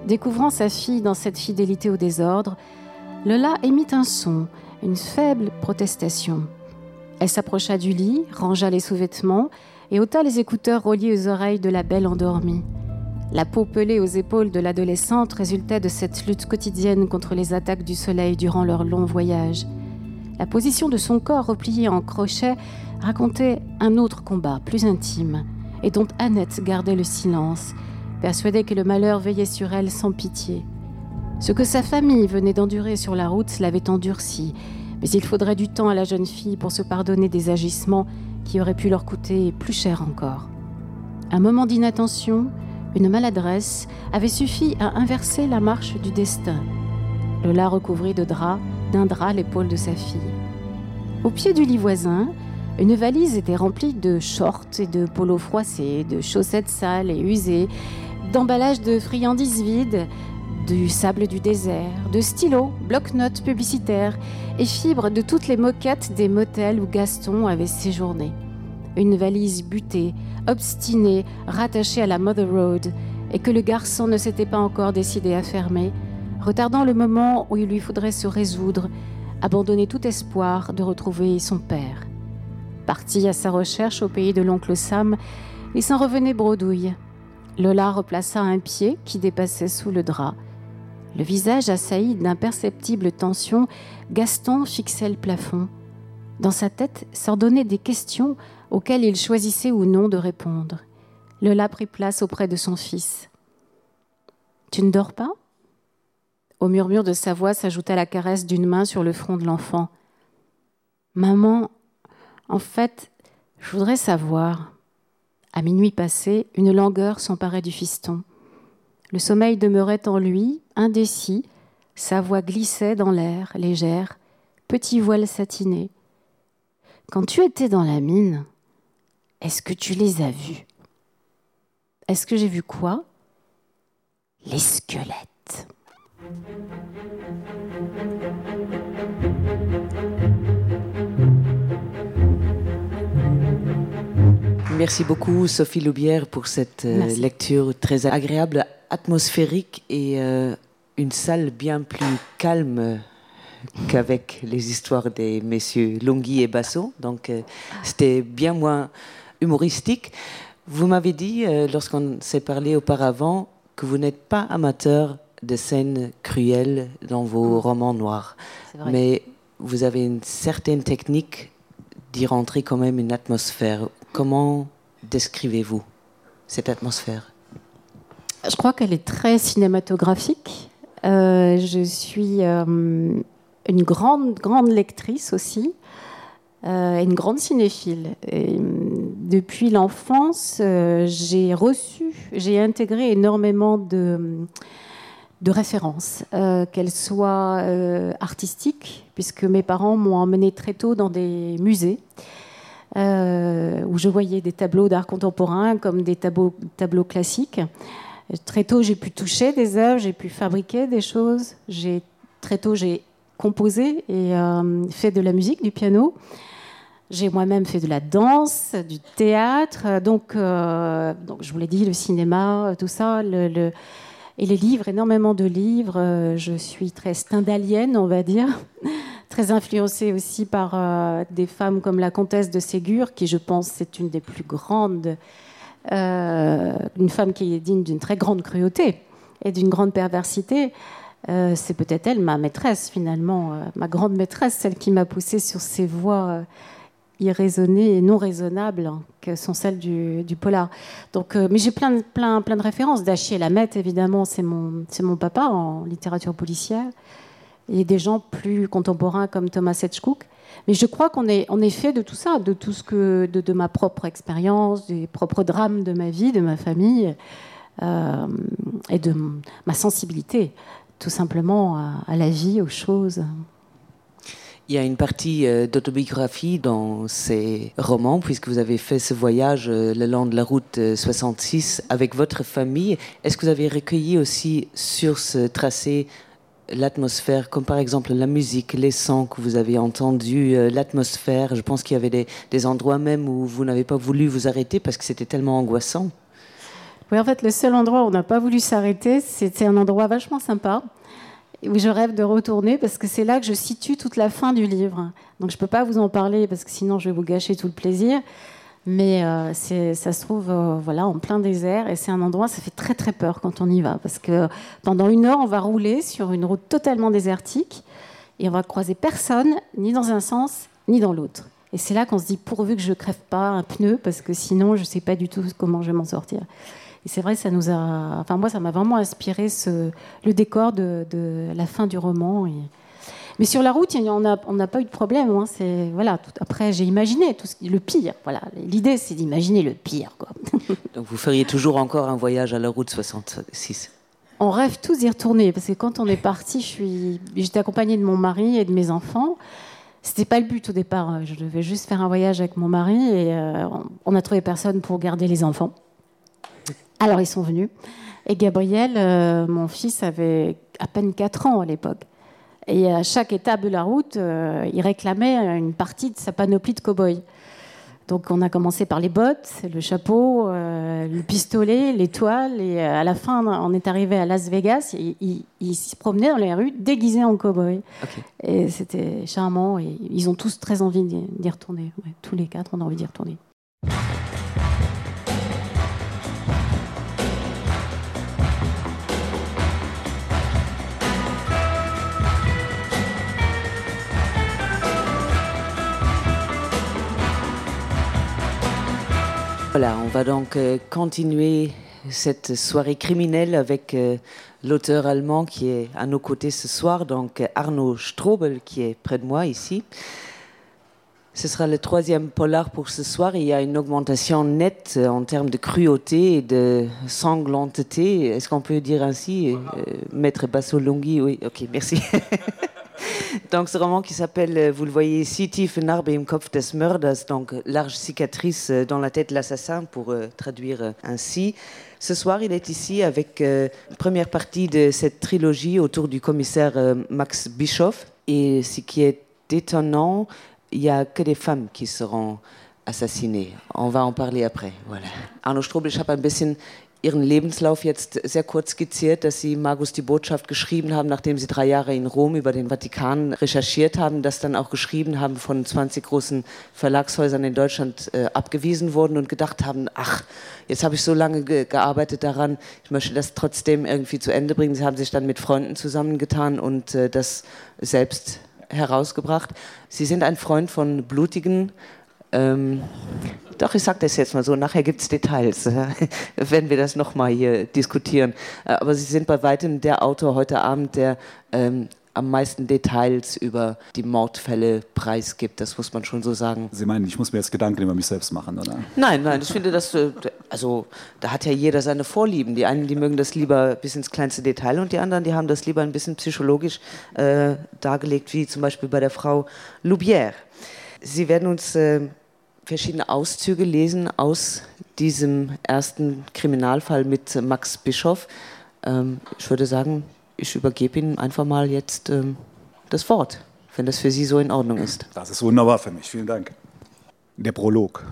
Découvrant sa fille dans cette fidélité au désordre, Lola émit un son, une faible protestation. Elle s'approcha du lit, rangea les sous-vêtements et ôta les écouteurs reliés aux oreilles de la belle endormie. La peau pelée aux épaules de l'adolescente résultait de cette lutte quotidienne contre les attaques du soleil durant leur long voyage. La position de son corps replié en crochet racontait un autre combat plus intime et dont Annette gardait le silence, persuadée que le malheur veillait sur elle sans pitié. Ce que sa famille venait d'endurer sur la route l'avait endurci, mais il faudrait du temps à la jeune fille pour se pardonner des agissements qui auraient pu leur coûter plus cher encore. Un moment d'inattention, une maladresse avait suffi à inverser la marche du destin. Lola recouvrit de drap d'un drap l'épaule de sa fille. Au pied du lit voisin, une valise était remplie de shorts et de polos froissés, de chaussettes sales et usées, d'emballages de friandises vides, du sable du désert, de stylos, blocs-notes publicitaires et fibres de toutes les moquettes des motels où Gaston avait séjourné. Une valise butée, obstinée, rattachée à la Mother Road et que le garçon ne s'était pas encore décidé à fermer, retardant le moment où il lui faudrait se résoudre, abandonner tout espoir de retrouver son père. Parti à sa recherche au pays de l'oncle Sam, il s'en revenait bredouille. Lola replaça un pied qui dépassait sous le drap. Le visage assailli d'imperceptibles tensions, Gaston fixait le plafond. Dans sa tête s'ordonnaient des questions auxquelles il choisissait ou non de répondre. Lola prit place auprès de son fils. Tu ne dors pas Au murmure de sa voix s'ajouta la caresse d'une main sur le front de l'enfant. Maman, en fait, je voudrais savoir. À minuit passé, une langueur s'emparait du fiston. Le sommeil demeurait en lui, indécis, sa voix glissait dans l'air, légère, petit voile satiné. Quand tu étais dans la mine, est-ce que tu les as vus Est-ce que j'ai vu quoi Les squelettes. Merci beaucoup Sophie Loubière pour cette euh, lecture très agréable, atmosphérique et euh, une salle bien plus calme qu'avec les histoires des messieurs Longhi et Basso. Donc euh, c'était bien moins humoristique. Vous m'avez dit euh, lorsqu'on s'est parlé auparavant que vous n'êtes pas amateur de scènes cruelles dans vos mmh. romans noirs. Mais vous avez une certaine technique d'y rentrer quand même une atmosphère. Comment décrivez-vous cette atmosphère Je crois qu'elle est très cinématographique. Euh, je suis euh, une grande grande lectrice aussi. Euh, une grande cinéphile. Et, depuis l'enfance, euh, j'ai reçu, j'ai intégré énormément de, de références, euh, qu'elles soient euh, artistiques, puisque mes parents m'ont emmené très tôt dans des musées. Euh, où je voyais des tableaux d'art contemporain comme des tableaux, tableaux classiques. Très tôt, j'ai pu toucher des œuvres, j'ai pu fabriquer des choses. J'ai très tôt j'ai composé et euh, fait de la musique, du piano. J'ai moi-même fait de la danse, du théâtre, donc, euh, donc je vous l'ai dit, le cinéma, tout ça, le, le, et les livres, énormément de livres. Euh, je suis très stendhalienne, on va dire, très influencée aussi par euh, des femmes comme la comtesse de Ségur, qui je pense c'est une des plus grandes, euh, une femme qui est digne d'une très grande cruauté et d'une grande perversité. Euh, c'est peut-être elle, ma maîtresse finalement, euh, ma grande maîtresse, celle qui m'a poussée sur ces voies euh, irraisonnées et non raisonnables que sont celles du, du polar. Donc, euh, mais j'ai plein, plein, plein de références. Dachier Lamette, évidemment, c'est mon, mon papa en littérature policière, et des gens plus contemporains comme Thomas Etchkook. Mais je crois qu'on est, on est fait de tout ça, de tout ce que de, de ma propre expérience, des propres drames de ma vie, de ma famille euh, et de ma sensibilité tout simplement à, à la vie, aux choses. Il y a une partie euh, d'autobiographie dans ces romans, puisque vous avez fait ce voyage euh, le long de la route 66 euh, avec votre famille. Est-ce que vous avez recueilli aussi sur ce tracé l'atmosphère, comme par exemple la musique, les sons que vous avez entendus, l'atmosphère Je pense qu'il y avait des, des endroits même où vous n'avez pas voulu vous arrêter parce que c'était tellement angoissant. Oui, en fait, le seul endroit où on n'a pas voulu s'arrêter, c'était un endroit vachement sympa où je rêve de retourner parce que c'est là que je situe toute la fin du livre. Donc je ne peux pas vous en parler parce que sinon je vais vous gâcher tout le plaisir. Mais euh, ça se trouve euh, voilà, en plein désert et c'est un endroit, ça fait très très peur quand on y va parce que pendant une heure, on va rouler sur une route totalement désertique et on va croiser personne, ni dans un sens, ni dans l'autre. Et c'est là qu'on se dit pourvu que je crève pas un pneu parce que sinon je ne sais pas du tout comment je vais m'en sortir. Et c'est vrai, ça nous a, enfin moi, ça m'a vraiment inspiré ce, le décor de, de la fin du roman. Et... Mais sur la route, on n'a on pas eu de problème. Hein, c'est voilà. Tout... Après, j'ai imaginé tout ce qui... le pire. Voilà. L'idée, c'est d'imaginer le pire. Quoi. Donc vous feriez toujours encore un voyage à la route 66 On rêve tous d'y retourner parce que quand on est parti, je suis, j'étais accompagnée de mon mari et de mes enfants. C'était pas le but au départ. Je devais juste faire un voyage avec mon mari et euh, on a trouvé personne pour garder les enfants. Alors ils sont venus. Et Gabriel, euh, mon fils, avait à peine 4 ans à l'époque. Et à chaque étape de la route, euh, il réclamait une partie de sa panoplie de cow-boy. Donc on a commencé par les bottes, le chapeau, euh, le pistolet, l'étoile et euh, à la fin on est arrivé à Las Vegas et il, il se promenait dans les rues déguisé en cow-boy. Okay. Et c'était charmant et ils ont tous très envie d'y retourner. Ouais, tous les quatre on a envie d'y retourner. Voilà, on va donc euh, continuer cette soirée criminelle avec euh, l'auteur allemand qui est à nos côtés ce soir, donc Arnaud Strobel qui est près de moi ici. Ce sera le troisième polar pour ce soir. Il y a une augmentation nette euh, en termes de cruauté et de sanglanteté. Est-ce qu'on peut dire ainsi euh, Maître Bassolonghi, oui, ok, merci. donc ce roman qui s'appelle, euh, vous le voyez ici, Tiefe Narbe im Kopf des Mörders, donc large cicatrice euh, dans la tête de l'assassin pour euh, traduire euh, ainsi. Ce soir, il est ici avec euh, première partie de cette trilogie autour du commissaire euh, Max Bischoff. Et ce qui est étonnant, il n'y a que des femmes qui seront assassinées. On va en parler après. Voilà. Arno Strobel, ich habe ein bisschen Ihren Lebenslauf jetzt sehr kurz skizziert, dass Sie Magus die Botschaft geschrieben haben, nachdem Sie drei Jahre in Rom über den Vatikan recherchiert haben, das dann auch geschrieben haben, von 20 großen Verlagshäusern in Deutschland äh, abgewiesen wurden und gedacht haben, ach, jetzt habe ich so lange ge gearbeitet daran, ich möchte das trotzdem irgendwie zu Ende bringen. Sie haben sich dann mit Freunden zusammengetan und äh, das selbst herausgebracht. Sie sind ein Freund von blutigen ähm, doch ich sage das jetzt mal so nachher gibt es Details wenn wir das noch mal hier diskutieren. Äh, aber Sie sind bei weitem der Autor heute Abend, der ähm, am meisten Details über die Mordfälle preisgibt. Das muss man schon so sagen. Sie meinen, ich muss mir jetzt Gedanken über mich selbst machen, oder? Nein, nein, ich finde das äh, also da hat ja jeder seine Vorlieben. Die einen, die mögen das lieber bis ins kleinste Detail und die anderen, die haben das lieber ein bisschen psychologisch äh, dargelegt, wie zum Beispiel bei der Frau Loubière. Sie werden uns äh, verschiedene Auszüge lesen aus diesem ersten Kriminalfall mit Max Bischoff. Ähm, ich würde sagen, ich übergebe Ihnen einfach mal jetzt ähm, das Wort, wenn das für Sie so in Ordnung ist. Das ist wunderbar für mich. Vielen Dank. Der Prolog.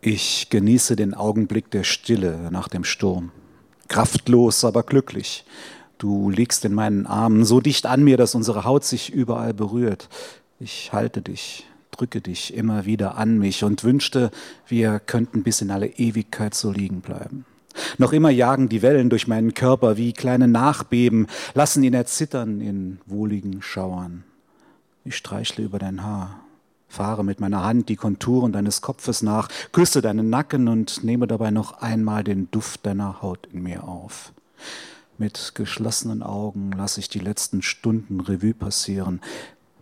Ich genieße den Augenblick der Stille nach dem Sturm. Kraftlos, aber glücklich. Du liegst in meinen Armen so dicht an mir, dass unsere Haut sich überall berührt. Ich halte dich, drücke dich immer wieder an mich und wünschte, wir könnten bis in alle Ewigkeit so liegen bleiben. Noch immer jagen die Wellen durch meinen Körper wie kleine Nachbeben, lassen ihn erzittern in wohligen Schauern. Ich streichle über dein Haar, fahre mit meiner Hand die Konturen deines Kopfes nach, küsse deinen Nacken und nehme dabei noch einmal den Duft deiner Haut in mir auf. Mit geschlossenen Augen lasse ich die letzten Stunden Revue passieren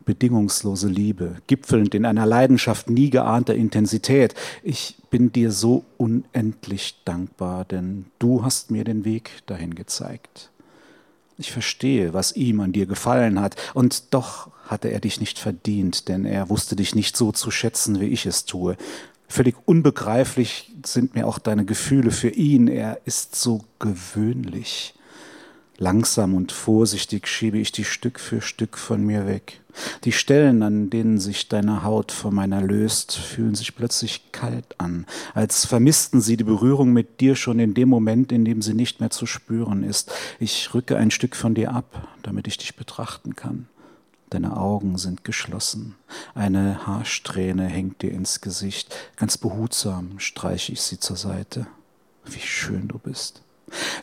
bedingungslose Liebe, gipfelnd in einer Leidenschaft nie geahnter Intensität. Ich bin dir so unendlich dankbar, denn du hast mir den Weg dahin gezeigt. Ich verstehe, was ihm an dir gefallen hat, und doch hatte er dich nicht verdient, denn er wusste dich nicht so zu schätzen, wie ich es tue. Völlig unbegreiflich sind mir auch deine Gefühle für ihn, er ist so gewöhnlich. Langsam und vorsichtig schiebe ich die Stück für Stück von mir weg. Die Stellen, an denen sich deine Haut vor meiner löst, fühlen sich plötzlich kalt an, als vermissten sie die Berührung mit dir schon in dem Moment, in dem sie nicht mehr zu spüren ist. Ich rücke ein Stück von dir ab, damit ich dich betrachten kann. Deine Augen sind geschlossen. Eine Haarsträhne hängt dir ins Gesicht. Ganz behutsam streiche ich sie zur Seite. Wie schön du bist.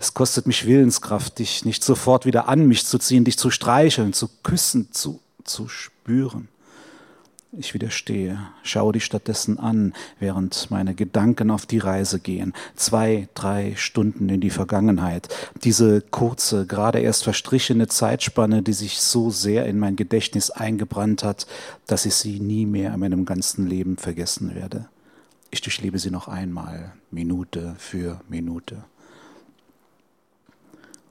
Es kostet mich Willenskraft, dich nicht sofort wieder an mich zu ziehen, dich zu streicheln, zu küssen, zu, zu spüren. Ich widerstehe, schaue dich stattdessen an, während meine Gedanken auf die Reise gehen. Zwei, drei Stunden in die Vergangenheit. Diese kurze, gerade erst verstrichene Zeitspanne, die sich so sehr in mein Gedächtnis eingebrannt hat, dass ich sie nie mehr in meinem ganzen Leben vergessen werde. Ich durchlebe sie noch einmal, Minute für Minute.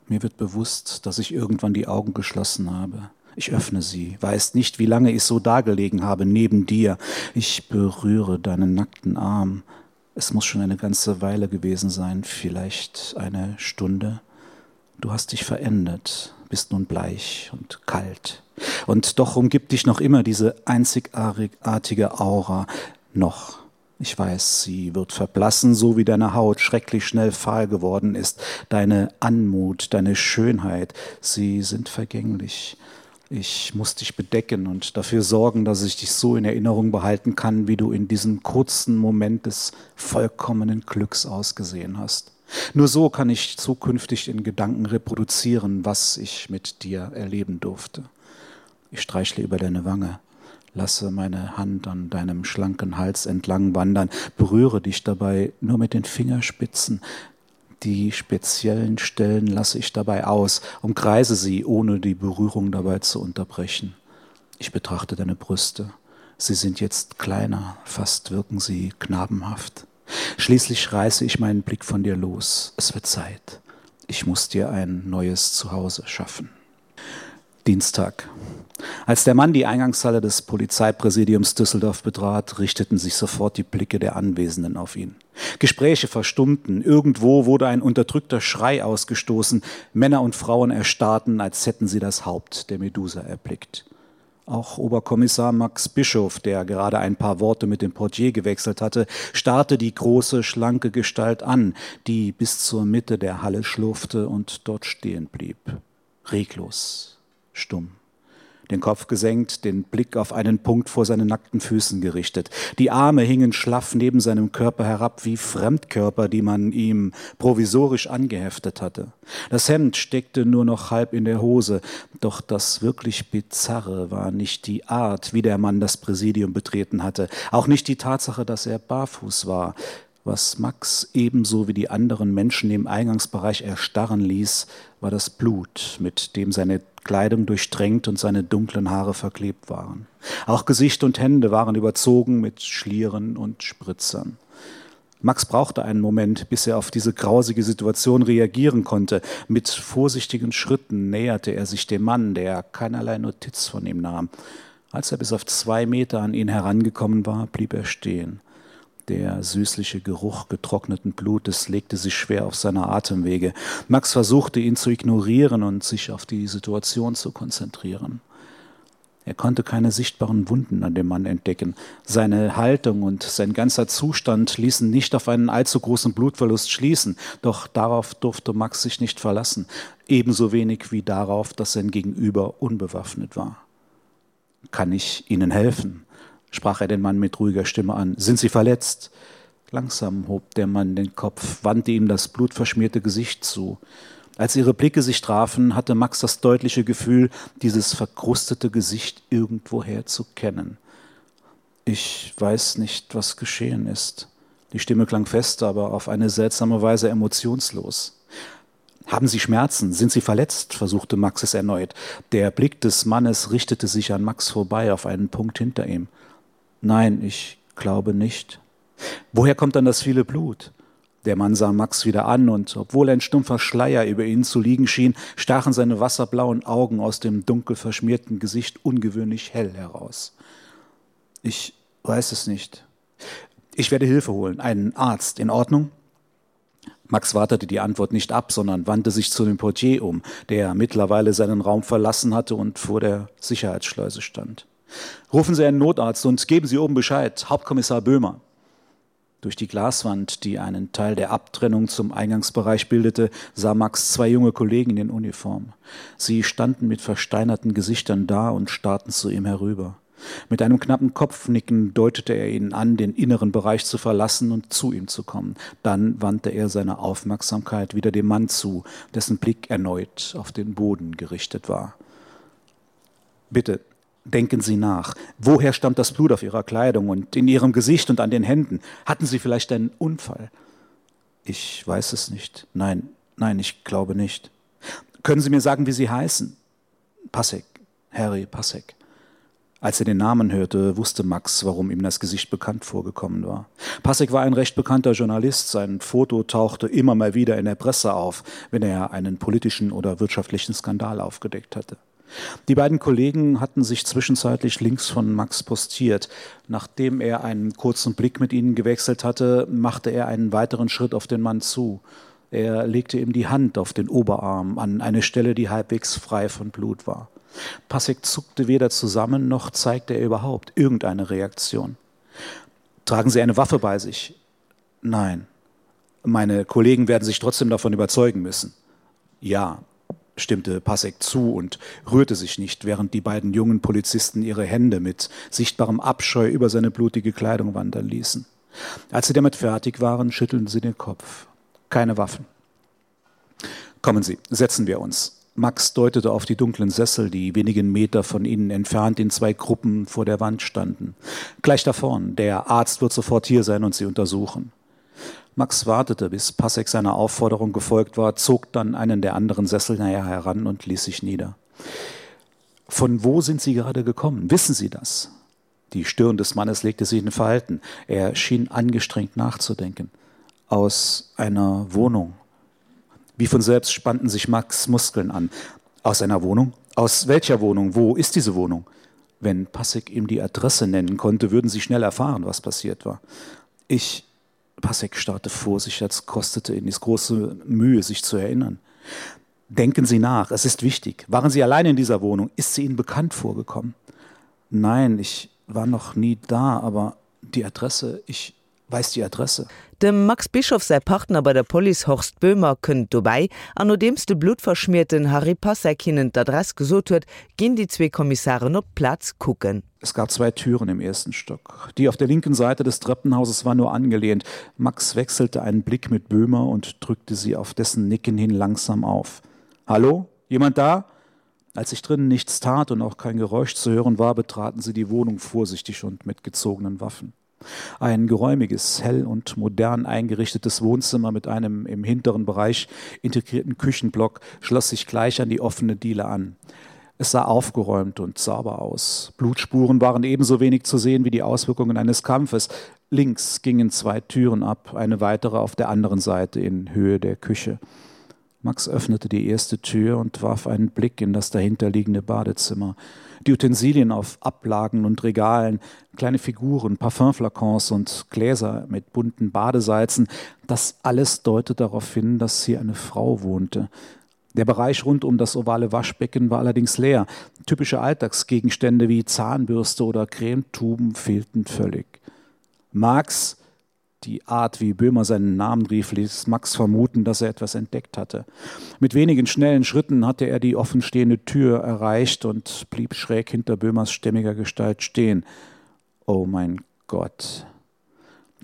Mir wird bewusst, dass ich irgendwann die Augen geschlossen habe. Ich öffne sie, weiß nicht, wie lange ich so dagelegen habe neben dir. Ich berühre deinen nackten Arm. Es muss schon eine ganze Weile gewesen sein, vielleicht eine Stunde. Du hast dich verändert, bist nun bleich und kalt. Und doch umgibt dich noch immer diese einzigartige Aura noch. Ich weiß, sie wird verblassen, so wie deine Haut schrecklich schnell fahl geworden ist. Deine Anmut, deine Schönheit, sie sind vergänglich. Ich muss dich bedecken und dafür sorgen, dass ich dich so in Erinnerung behalten kann, wie du in diesem kurzen Moment des vollkommenen Glücks ausgesehen hast. Nur so kann ich zukünftig in Gedanken reproduzieren, was ich mit dir erleben durfte. Ich streichle über deine Wange lasse meine Hand an deinem schlanken Hals entlang wandern, berühre dich dabei nur mit den Fingerspitzen. Die speziellen Stellen lasse ich dabei aus, umkreise sie, ohne die Berührung dabei zu unterbrechen. Ich betrachte deine Brüste. Sie sind jetzt kleiner, fast wirken sie knabenhaft. Schließlich reiße ich meinen Blick von dir los. Es wird Zeit. Ich muss dir ein neues Zuhause schaffen. Dienstag. Als der Mann die Eingangshalle des Polizeipräsidiums Düsseldorf betrat, richteten sich sofort die Blicke der Anwesenden auf ihn. Gespräche verstummten, irgendwo wurde ein unterdrückter Schrei ausgestoßen, Männer und Frauen erstarrten, als hätten sie das Haupt der Medusa erblickt. Auch Oberkommissar Max Bischof, der gerade ein paar Worte mit dem Portier gewechselt hatte, starrte die große, schlanke Gestalt an, die bis zur Mitte der Halle schlurfte und dort stehen blieb. Reglos, stumm den Kopf gesenkt, den Blick auf einen Punkt vor seinen nackten Füßen gerichtet. Die Arme hingen schlaff neben seinem Körper herab wie Fremdkörper, die man ihm provisorisch angeheftet hatte. Das Hemd steckte nur noch halb in der Hose, doch das wirklich Bizarre war nicht die Art, wie der Mann das Präsidium betreten hatte, auch nicht die Tatsache, dass er barfuß war. Was Max ebenso wie die anderen Menschen im Eingangsbereich erstarren ließ, war das Blut, mit dem seine Kleidung durchtränkt und seine dunklen Haare verklebt waren. Auch Gesicht und Hände waren überzogen mit Schlieren und Spritzern. Max brauchte einen Moment, bis er auf diese grausige Situation reagieren konnte. Mit vorsichtigen Schritten näherte er sich dem Mann, der keinerlei Notiz von ihm nahm. Als er bis auf zwei Meter an ihn herangekommen war, blieb er stehen. Der süßliche Geruch getrockneten Blutes legte sich schwer auf seine Atemwege. Max versuchte ihn zu ignorieren und sich auf die Situation zu konzentrieren. Er konnte keine sichtbaren Wunden an dem Mann entdecken. Seine Haltung und sein ganzer Zustand ließen nicht auf einen allzu großen Blutverlust schließen, doch darauf durfte Max sich nicht verlassen, ebenso wenig wie darauf, dass sein Gegenüber unbewaffnet war. Kann ich Ihnen helfen? sprach er den Mann mit ruhiger Stimme an. Sind Sie verletzt? Langsam hob der Mann den Kopf, wandte ihm das blutverschmierte Gesicht zu. Als ihre Blicke sich trafen, hatte Max das deutliche Gefühl, dieses verkrustete Gesicht irgendwoher zu kennen. Ich weiß nicht, was geschehen ist. Die Stimme klang fest, aber auf eine seltsame Weise emotionslos. Haben Sie Schmerzen? Sind Sie verletzt? versuchte Max es erneut. Der Blick des Mannes richtete sich an Max vorbei auf einen Punkt hinter ihm. Nein, ich glaube nicht. Woher kommt dann das viele Blut? Der Mann sah Max wieder an und obwohl ein stumpfer Schleier über ihn zu liegen schien, stachen seine wasserblauen Augen aus dem dunkel verschmierten Gesicht ungewöhnlich hell heraus. Ich weiß es nicht. Ich werde Hilfe holen, einen Arzt in Ordnung? Max wartete die Antwort nicht ab, sondern wandte sich zu dem Portier um, der mittlerweile seinen Raum verlassen hatte und vor der Sicherheitsschleuse stand. Rufen Sie einen Notarzt und geben Sie oben Bescheid, Hauptkommissar Böhmer. Durch die Glaswand, die einen Teil der Abtrennung zum Eingangsbereich bildete, sah Max zwei junge Kollegen in Uniform. Sie standen mit versteinerten Gesichtern da und starrten zu ihm herüber. Mit einem knappen Kopfnicken deutete er ihnen an, den inneren Bereich zu verlassen und zu ihm zu kommen. Dann wandte er seine Aufmerksamkeit wieder dem Mann zu, dessen Blick erneut auf den Boden gerichtet war. Bitte, denken Sie nach. Woher stammt das Blut auf Ihrer Kleidung und in Ihrem Gesicht und an den Händen? Hatten Sie vielleicht einen Unfall? Ich weiß es nicht. Nein, nein, ich glaube nicht. Können Sie mir sagen, wie Sie heißen? Passek, Harry Passek. Als er den Namen hörte, wusste Max, warum ihm das Gesicht bekannt vorgekommen war. Passek war ein recht bekannter Journalist, sein Foto tauchte immer mal wieder in der Presse auf, wenn er einen politischen oder wirtschaftlichen Skandal aufgedeckt hatte. Die beiden Kollegen hatten sich zwischenzeitlich links von Max postiert. Nachdem er einen kurzen Blick mit ihnen gewechselt hatte, machte er einen weiteren Schritt auf den Mann zu. Er legte ihm die Hand auf den Oberarm an eine Stelle, die halbwegs frei von Blut war. Passek zuckte weder zusammen noch zeigte er überhaupt irgendeine Reaktion. Tragen Sie eine Waffe bei sich? Nein. Meine Kollegen werden sich trotzdem davon überzeugen müssen. Ja, stimmte Passek zu und rührte sich nicht, während die beiden jungen Polizisten ihre Hände mit sichtbarem Abscheu über seine blutige Kleidung wandern ließen. Als sie damit fertig waren, schüttelten sie den Kopf. Keine Waffen. Kommen Sie, setzen wir uns. Max deutete auf die dunklen Sessel, die wenigen Meter von ihnen entfernt in zwei Gruppen vor der Wand standen. Gleich da vorn, der Arzt wird sofort hier sein und sie untersuchen. Max wartete, bis Passek seiner Aufforderung gefolgt war, zog dann einen der anderen Sessel näher heran und ließ sich nieder. Von wo sind Sie gerade gekommen? Wissen Sie das? Die Stirn des Mannes legte sich in Verhalten. Er schien angestrengt nachzudenken. Aus einer Wohnung. Wie von selbst spannten sich Max Muskeln an. Aus einer Wohnung? Aus welcher Wohnung? Wo ist diese Wohnung? Wenn Passek ihm die Adresse nennen konnte, würden sie schnell erfahren, was passiert war. Ich Passek starrte vor sich, als kostete ihn dies große Mühe, sich zu erinnern. Denken Sie nach, es ist wichtig. Waren Sie allein in dieser Wohnung? Ist sie Ihnen bekannt vorgekommen? Nein, ich war noch nie da, aber die Adresse, ich weiß die Adresse. Dem Max Bischoff säi Partner bei der Police Horst Böhmer kënnt dobäi an nodeems de bluttverschmierten Harry Passek hinnen d'Adress gesot huet, ginn déi zwee Kommissaren op d'Plaz kucken. Es gab zwei Türen im ersten Stock. Die auf der linken Seite des Treppenhauses war nur angelehnt. Max wechselte einen Blick mit Böhmer und drückte sie auf dessen Nicken hin langsam auf. Hallo? Jemand da? Als sich drinnen nichts tat und auch kein Geräusch zu hören war, betraten sie die Wohnung vorsichtig und mit gezogenen Waffen. Ein geräumiges, hell und modern eingerichtetes Wohnzimmer mit einem im hinteren Bereich integrierten Küchenblock schloss sich gleich an die offene Diele an. Es sah aufgeräumt und sauber aus. Blutspuren waren ebenso wenig zu sehen wie die Auswirkungen eines Kampfes. Links gingen zwei Türen ab, eine weitere auf der anderen Seite in Höhe der Küche. Max öffnete die erste Tür und warf einen Blick in das dahinterliegende Badezimmer. Die Utensilien auf Ablagen und Regalen, kleine Figuren, Parfümflakons und Gläser mit bunten Badesalzen, das alles deutet darauf hin, dass hier eine Frau wohnte. Der Bereich rund um das ovale Waschbecken war allerdings leer. Typische Alltagsgegenstände wie Zahnbürste oder Cremetuben fehlten völlig. Max, die Art, wie Böhmer seinen Namen rief, ließ Max vermuten, dass er etwas entdeckt hatte. Mit wenigen schnellen Schritten hatte er die offenstehende Tür erreicht und blieb schräg hinter Böhmers stämmiger Gestalt stehen. Oh mein Gott!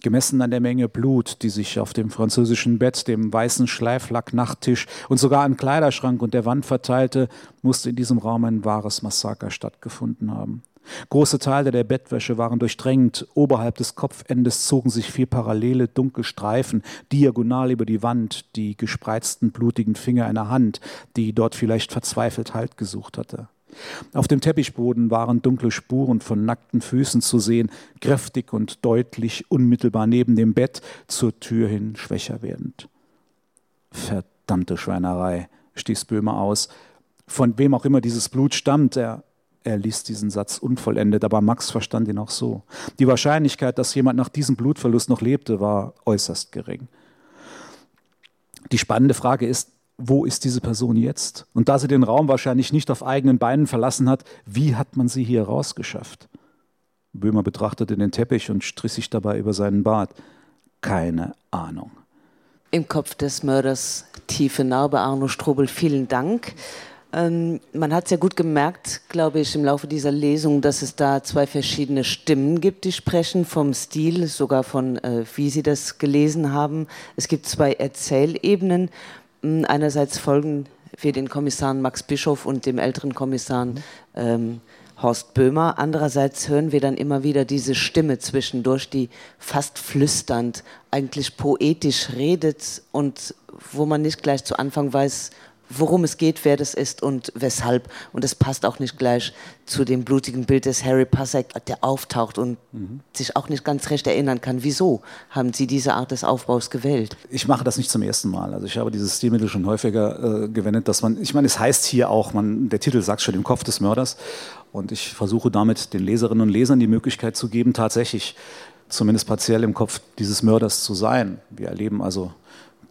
Gemessen an der Menge Blut, die sich auf dem französischen Bett, dem weißen Schleiflacknachttisch und sogar am Kleiderschrank und der Wand verteilte, musste in diesem Raum ein wahres Massaker stattgefunden haben. Große Teile der Bettwäsche waren durchdrängt, oberhalb des Kopfendes zogen sich vier parallele dunkle Streifen diagonal über die Wand, die gespreizten blutigen Finger einer Hand, die dort vielleicht verzweifelt Halt gesucht hatte. Auf dem Teppichboden waren dunkle Spuren von nackten Füßen zu sehen, kräftig und deutlich unmittelbar neben dem Bett zur Tür hin schwächer werdend. Verdammte Schweinerei, stieß Böhmer aus. Von wem auch immer dieses Blut stammt, er Er ließ diesen Satz unvollendet, aber Max verstand ihn auch so. Die Wahrscheinlichkeit, dass jemand nach diesem Blutverlust noch lebte, war äußerst gering. Die spannende Frage ist, wo ist diese Person jetzt? Und da sie den Raum wahrscheinlich nicht auf eigenen Beinen verlassen hat, wie hat man sie hier rausgeschafft? Böhmer betrachtete den Teppich und strich sich dabei über seinen Bart. Keine Ahnung. Im Kopf des Mörders tiefe Narbe Arno Strobel, vielen Dank. Ähm, man hat sehr gut gemerkt, glaube ich, im Laufe dieser Lesung, dass es da zwei verschiedene Stimmen gibt, die sprechen vom Stil, sogar von äh, wie Sie das gelesen haben. Es gibt zwei Erzählebenen. Hm, einerseits folgen wir den Kommissaren Max Bischof und dem älteren Kommissar ähm, Horst Böhmer. Andererseits hören wir dann immer wieder diese Stimme zwischendurch, die fast flüsternd, eigentlich poetisch redet und wo man nicht gleich zu Anfang weiß, worum es geht, wer das ist und weshalb. Und es passt auch nicht gleich zu dem blutigen Bild des Harry Pasek, der auftaucht und mhm. sich auch nicht ganz recht erinnern kann. Wieso haben Sie diese Art des Aufbaus gewählt? Ich mache das nicht zum ersten Mal. Also ich habe dieses Stilmittel schon häufiger äh, gewendet, dass man ich meine, es heißt hier auch man der Titel sagt schon im Kopf des Mörders. Und ich versuche damit den Leserinnen und Lesern die Möglichkeit zu geben, tatsächlich zumindest partiell im Kopf dieses Mörders zu sein. Wir erleben also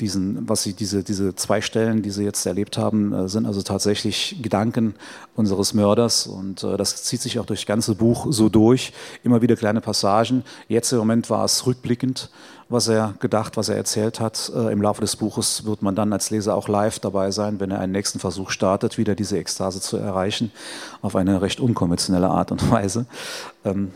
diesen, was sie diese, diese zwei Stellen, die sie jetzt erlebt haben, äh, sind also tatsächlich Gedanken unseres Mörders und äh, das zieht sich auch durch das ganze Buch so durch. Immer wieder kleine Passagen. Jetzt im Moment war es rückblickend, was er gedacht, was er erzählt hat. Äh, Im Laufe des Buches wird man dann als Leser auch live dabei sein, wenn er einen nächsten Versuch startet, wieder diese Ekstase zu erreichen, auf eine recht unkonventionelle Art und Weise. Ähm,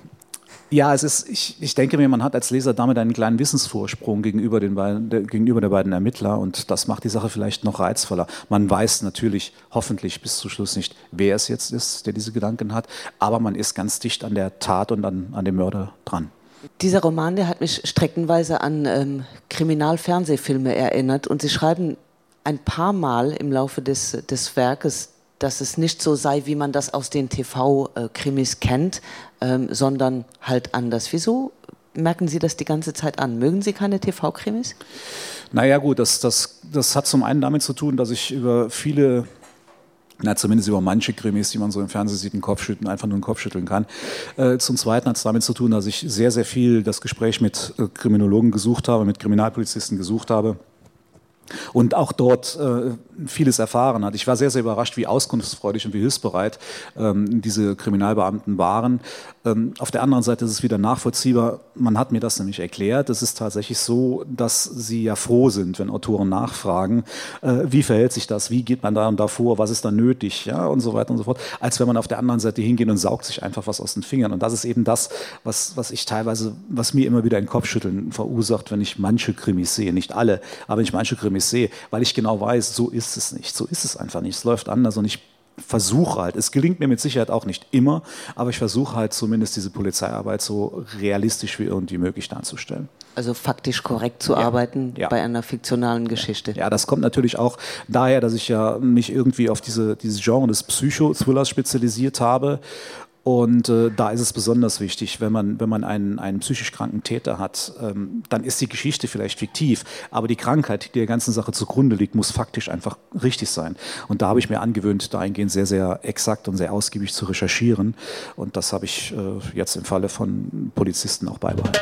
Ja, es ist, ich, ich denke mir, man hat als Leser damit einen kleinen Wissensvorsprung gegenüber, den beiden, der, gegenüber der beiden Ermittler und das macht die Sache vielleicht noch reizvoller. Man weiß natürlich hoffentlich bis zum Schluss nicht, wer es jetzt ist, der diese Gedanken hat, aber man ist ganz dicht an der Tat und an, an dem Mörder dran. Dieser Roman, der hat mich streckenweise an ähm, Kriminalfernsehfilme erinnert und Sie schreiben ein paar Mal im Laufe des, des Werkes, dass es nicht so sei, wie man das aus den TV-Krimis äh, kennt, ähm, sondern halt anders. Wieso merken Sie das die ganze Zeit an? Mögen Sie keine TV-Krimis? Naja gut, das, das, das hat zum einen damit zu tun, dass ich über viele na, zumindest über manche Krimis, die man so im Fernsehen sieht, einen Kopfschütteln, einfach nur einen Kopf schütteln kann. Äh, zum Zweiten hat es damit zu tun, dass ich sehr, sehr viel das Gespräch mit äh, Kriminologen gesucht habe, mit Kriminalpolizisten gesucht habe und auch dort äh, vieles erfahren hat. Ich war sehr, sehr überrascht, wie auskunftsfreudig und wie hilfsbereit ähm, diese Kriminalbeamten waren. Ähm, auf der anderen Seite ist es wieder nachvollziehbar. Man hat mir das nämlich erklärt. Es ist tatsächlich so, dass sie ja froh sind, wenn Autoren nachfragen, äh, wie verhält sich das, wie geht man da und davor, was ist da nötig ja, und so weiter und so fort, als wenn man auf der anderen Seite hingeht und saugt sich einfach was aus den Fingern. Und das ist eben das, was, was ich teilweise, was mir immer wieder ein Kopfschütteln verursacht, wenn ich manche Krimis sehe. Nicht alle, aber wenn ich manche Krimis sehe, weil ich genau weiß, so ist es nicht. So ist es einfach nicht. Es läuft anders und ich versuche halt, es gelingt mir mit Sicherheit auch nicht immer, aber ich versuche halt zumindest diese Polizeiarbeit so realistisch wie irgendwie möglich darzustellen. Also faktisch korrekt zu ja. arbeiten ja. bei einer fiktionalen Geschichte. Ja. ja, das kommt natürlich auch daher, dass ich ja mich irgendwie auf diese, dieses Genre des Psychothrillers spezialisiert habe Und äh, da ist es besonders wichtig, wenn man, wenn man einen, einen psychisch kranken Täter hat, ähm, dann ist die Geschichte vielleicht fiktiv, aber die Krankheit, die der ganzen Sache zugrunde liegt, muss faktisch einfach richtig sein. Und da habe ich mir angewöhnt, dahingehend sehr, sehr exakt und sehr ausgiebig zu recherchieren. Und das habe ich äh, jetzt im Falle von Polizisten auch beibehalten.